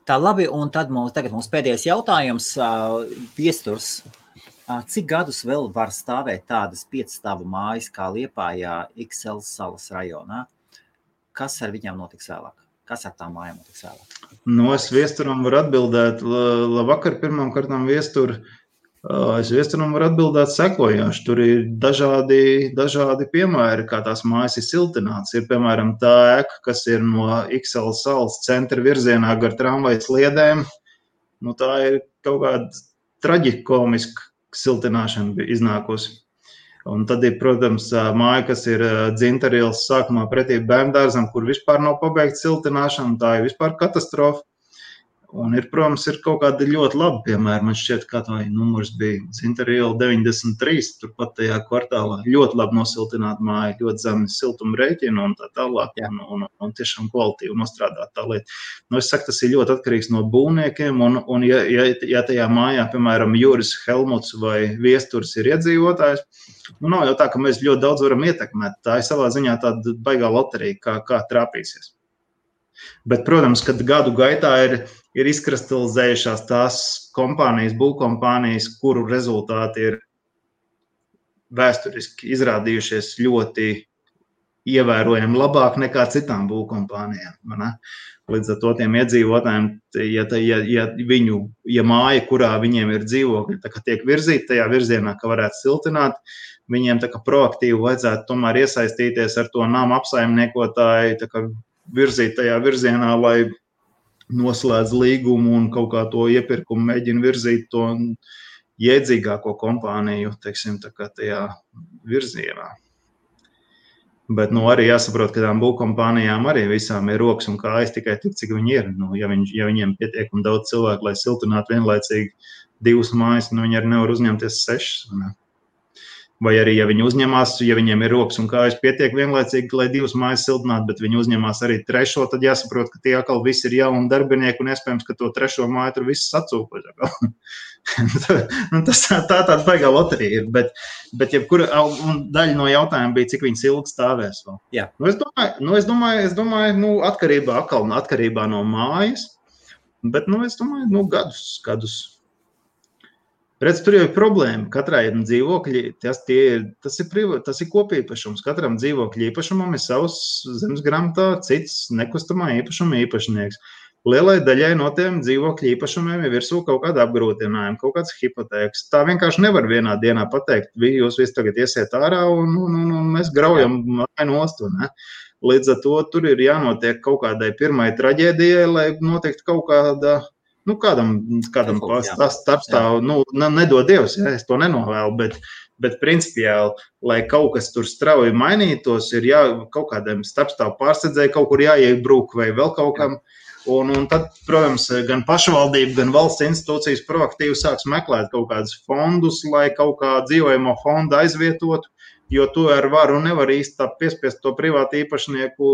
Tā labi, un tad tagad mums pēdējais jautājums. Viesturs, cik gadus vēl var stāvēt tādas 5-stāvu mājas kā Liepājā, XL salas rajonā? Kas ar viņām notiks vēlāk? Kas ar tām mājām notiks vēlāk? Es Viesturam varu atbildēt. Labvakar, pirmām kārtām Viestur. Es Viesturam varu atbildēt sekojoši. Tur ir dažādi piemēri, kā tās mājas ir siltināts. Ir, piemēram, tā ēka, kas ir no XL salas centra virzienā gar tramvajas sliedēm. Tā ir kaut kāda traģikomiska siltināšana iznākusi. Un tad ir, protams, māja, kas ir Dzintarielas sākumā pretī bērndārzam, kur vispār nav pabeigta siltināšana, tā ir vispār katastrofa. Un ir, protams, ir kaut kādi ļoti labi piemēri. Man šķiet, kā tā numurs bija Dzintariela 93, turpat tajā kvartālā. Ļoti labi nosiltināta māja, ļoti zemi siltuma rēķina un tā tālāk. Un tiešām kvalitīvi nostrādāt tā lieta. Es saku, tas ir ļoti atkarīgs no būvniekiem. Un ja tajā mājā, piemēram, Juris Helmuts vai Viesturs ir iedzīvotājs, nav jau tā, ka mēs ļoti daudz varam ietekmēt. Tā ir savā ziņā tāda baigā loterija, kā trāpīsies. Bet, protams, kad gadu gaitā ir izkristalizējušās tās kompānijas, būvkompānijas, kuru rezultāti ir vēsturiski izrādījušies ļoti ievērojami labāk nekā citām būvkompānijām. Līdz ar to tiem iedzīvotājiem, ja māja, kurā viņiem ir dzīvokļi, tā kā tiek virzīta tajā virzienā, ka varētu siltināt, viņiem tā kā proaktīvi vajadzētu tomēr iesaistīties ar to nama apsaimniekotāju, tā kā virzīt tajā virzienā, lai noslēdz līgumu un kaut kā to iepirkumu mēģina virzīt to jēdzīgāko kompāniju, teiksim, tā kā tajā virzienā. Bet, arī jāsaprot, ka tām būvkompānijām arī visām ir rokas un kājas tikai tik, cik viņi ir. Ja viņiem pietiekami daudz cilvēku, lai siltinātu vienlaicīgi 2 mājas, viņi arī nevar uzņemties 6. Vai arī, ja viņi uzņemās, ja viņiem ir rokas un kājas pietiek vienlaicīgi, lai 2 mājas siltinātu, bet viņi uzņemās arī 3, tad jāsaprot, ka tie atkal visi ir jauni darbinieki un iespējams, ka to 3. māju tur viss sacūko. Tas tāda baigā loterija ir, bet jebkura daļa no jautājuma bija, cik viņas ilgi stāvēs vēl. Jā. Es domāju, atkarībā no mājas, bet, es domāju, gadus. Redz, tur jau ir problēma. Katrai dzīvokļi, tas ir kopīpašums. Katram dzīvokļu īpašumam ir savs zemes grāmatā, cits nekustamā īpašuma īpašnieks. Lielai daļai no tiem dzīvokļu īpašumiem ir virsū kaut kāda apgrūtinājuma, kaut kāds hipotēks. Tā vienkārši nevar vienā dienā pateikt, jūs visi tagad iesiet ārā un mēs graujam māju nost. Līdz ar to tur ir jānotiek kaut kādai pirmai traģēdijai, lai notiktu kaut kāda. Kādam starpstāv, nedod Dievs, es to nenovēlu, bet principiāli, lai kaut kas tur strauji mainītos, ir kaut kādiem starpstāv pārsedzēji, kaut kur jāiebrūk vai vēl kaut kam, Un tad, protams, gan pašvaldība, gan valsts institūcijas proaktīvi sāks meklēt kaut kādus fondus, lai kaut kā dzīvojamo fondu aizvietotu, jo tu ar varu nevar īsti tā piespiest to privātu īpašnieku,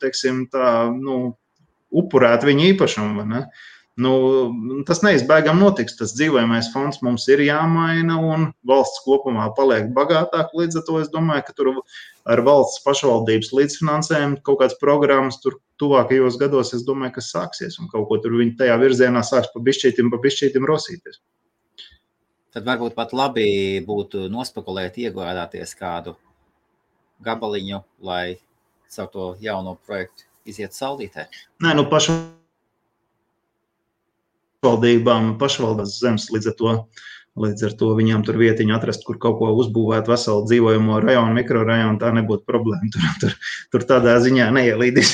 teiksim, tā, upurēt viņu īpašumu, vai ne? Tas neizbēgam notiks. Tas dzīvojamais fonds mums ir jāmaina un valsts kopumā paliek bagātāk. Līdz ar to es domāju, ka tur ar valsts pašvaldības līdzfinansējumu kaut kāds programmas tur tuvākajos gados, es domāju, ka sāksies un kaut ko tur viņi tajā virzienā sāks pa bišķītim rosīties. Tad varbūt pat labi būtu nospekulēt, iegādāties kādu gabaliņu, lai caur to jauno projektu iziet saulītē. Nē, pašvaldības zemes, līdz ar to viņām tur vietiņu atrast, kur kaut ko uzbūvēt veselu dzīvojamo rajonu, mikrorajonu, tā nebūtu problēma. Tur tādā ziņā neielīdīs.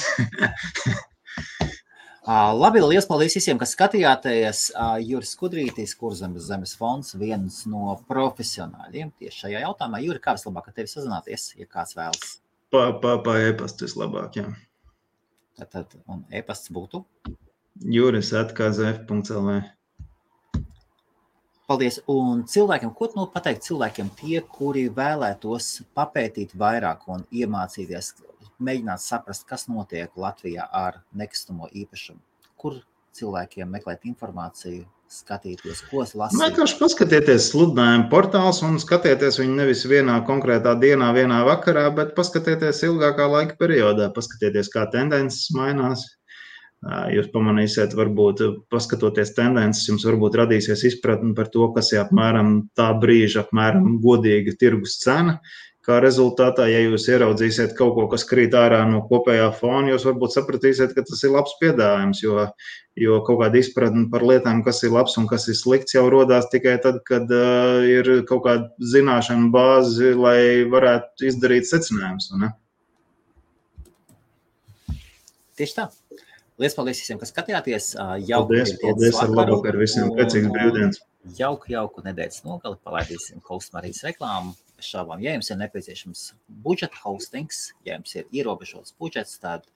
Labi, liels paldies visiem, kas skatījāties. Juris Skudrītis, Kurzemes fonds, viens no profesionāļiem tieši šajā jautājumā. Juri, kā vislabāk ar tevi sazināties, ja kāds vēlas? Pa e-pastu vislabāk, jā. Tad, un e-pasts būtu? juris@kzf.lv. Paldies. Un cilvēkiem, ko tu pateikt cilvēkiem tie, kuri vēlētos papētīt vairāk un iemācīties, mēģināt saprast, kas notiek Latvijā ar nekustamo īpašumu? Kur cilvēkiem meklēt informāciju, skatīties, ko lasīt? Vienkārši paskatieties sludinājumu portāls un skatieties viņu nevis vienā konkrētā dienā, vienā vakarā, bet paskatieties ilgākā laika periodā, paskatieties, kā tendences mainās. Jūs pamanīsiet, varbūt paskatoties tendences, jums varbūt radīsies izpratni par to, kas ir apmēram tā brīža, apmēram godīga tirgus cena. Kā rezultātā, ja jūs ieraudzīsiet kaut ko, kas krīt ārā no kopējā fona, jūs varbūt sapratīsiet, ka tas ir labs piedāvājums, jo kaut kāda izpratne par lietām, kas ir labs un kas ir slikts, jau rodās tikai tad, kad ir kaut kāda zināšana bāzi, lai varētu izdarīt secinājumus. Tieši tā. Liels paldies visiem, kas skatījāties. Paldies ar labvakar visiem. Priecīgs brīvdienas. Jauku nedēļas nogali. Palaidīsim Hostmarijas reklāmu. Bez šaubām, ja jums ir nepieciešams budžeta hostings, ja jums ir ierobežots budžets, tad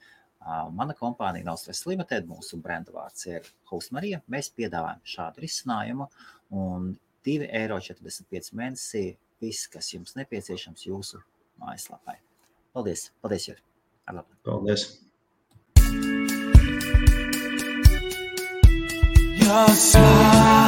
mana kompānija Naustress Limited, mūsu brenda vārds ir Hostmarija. Mēs piedāvājam šādu risinājumu un €2,45 mēnesī viss, kas jums nepieciešams jūsu mājaslapai. Paldies. Paldies, Juri. Paldies. Your smile.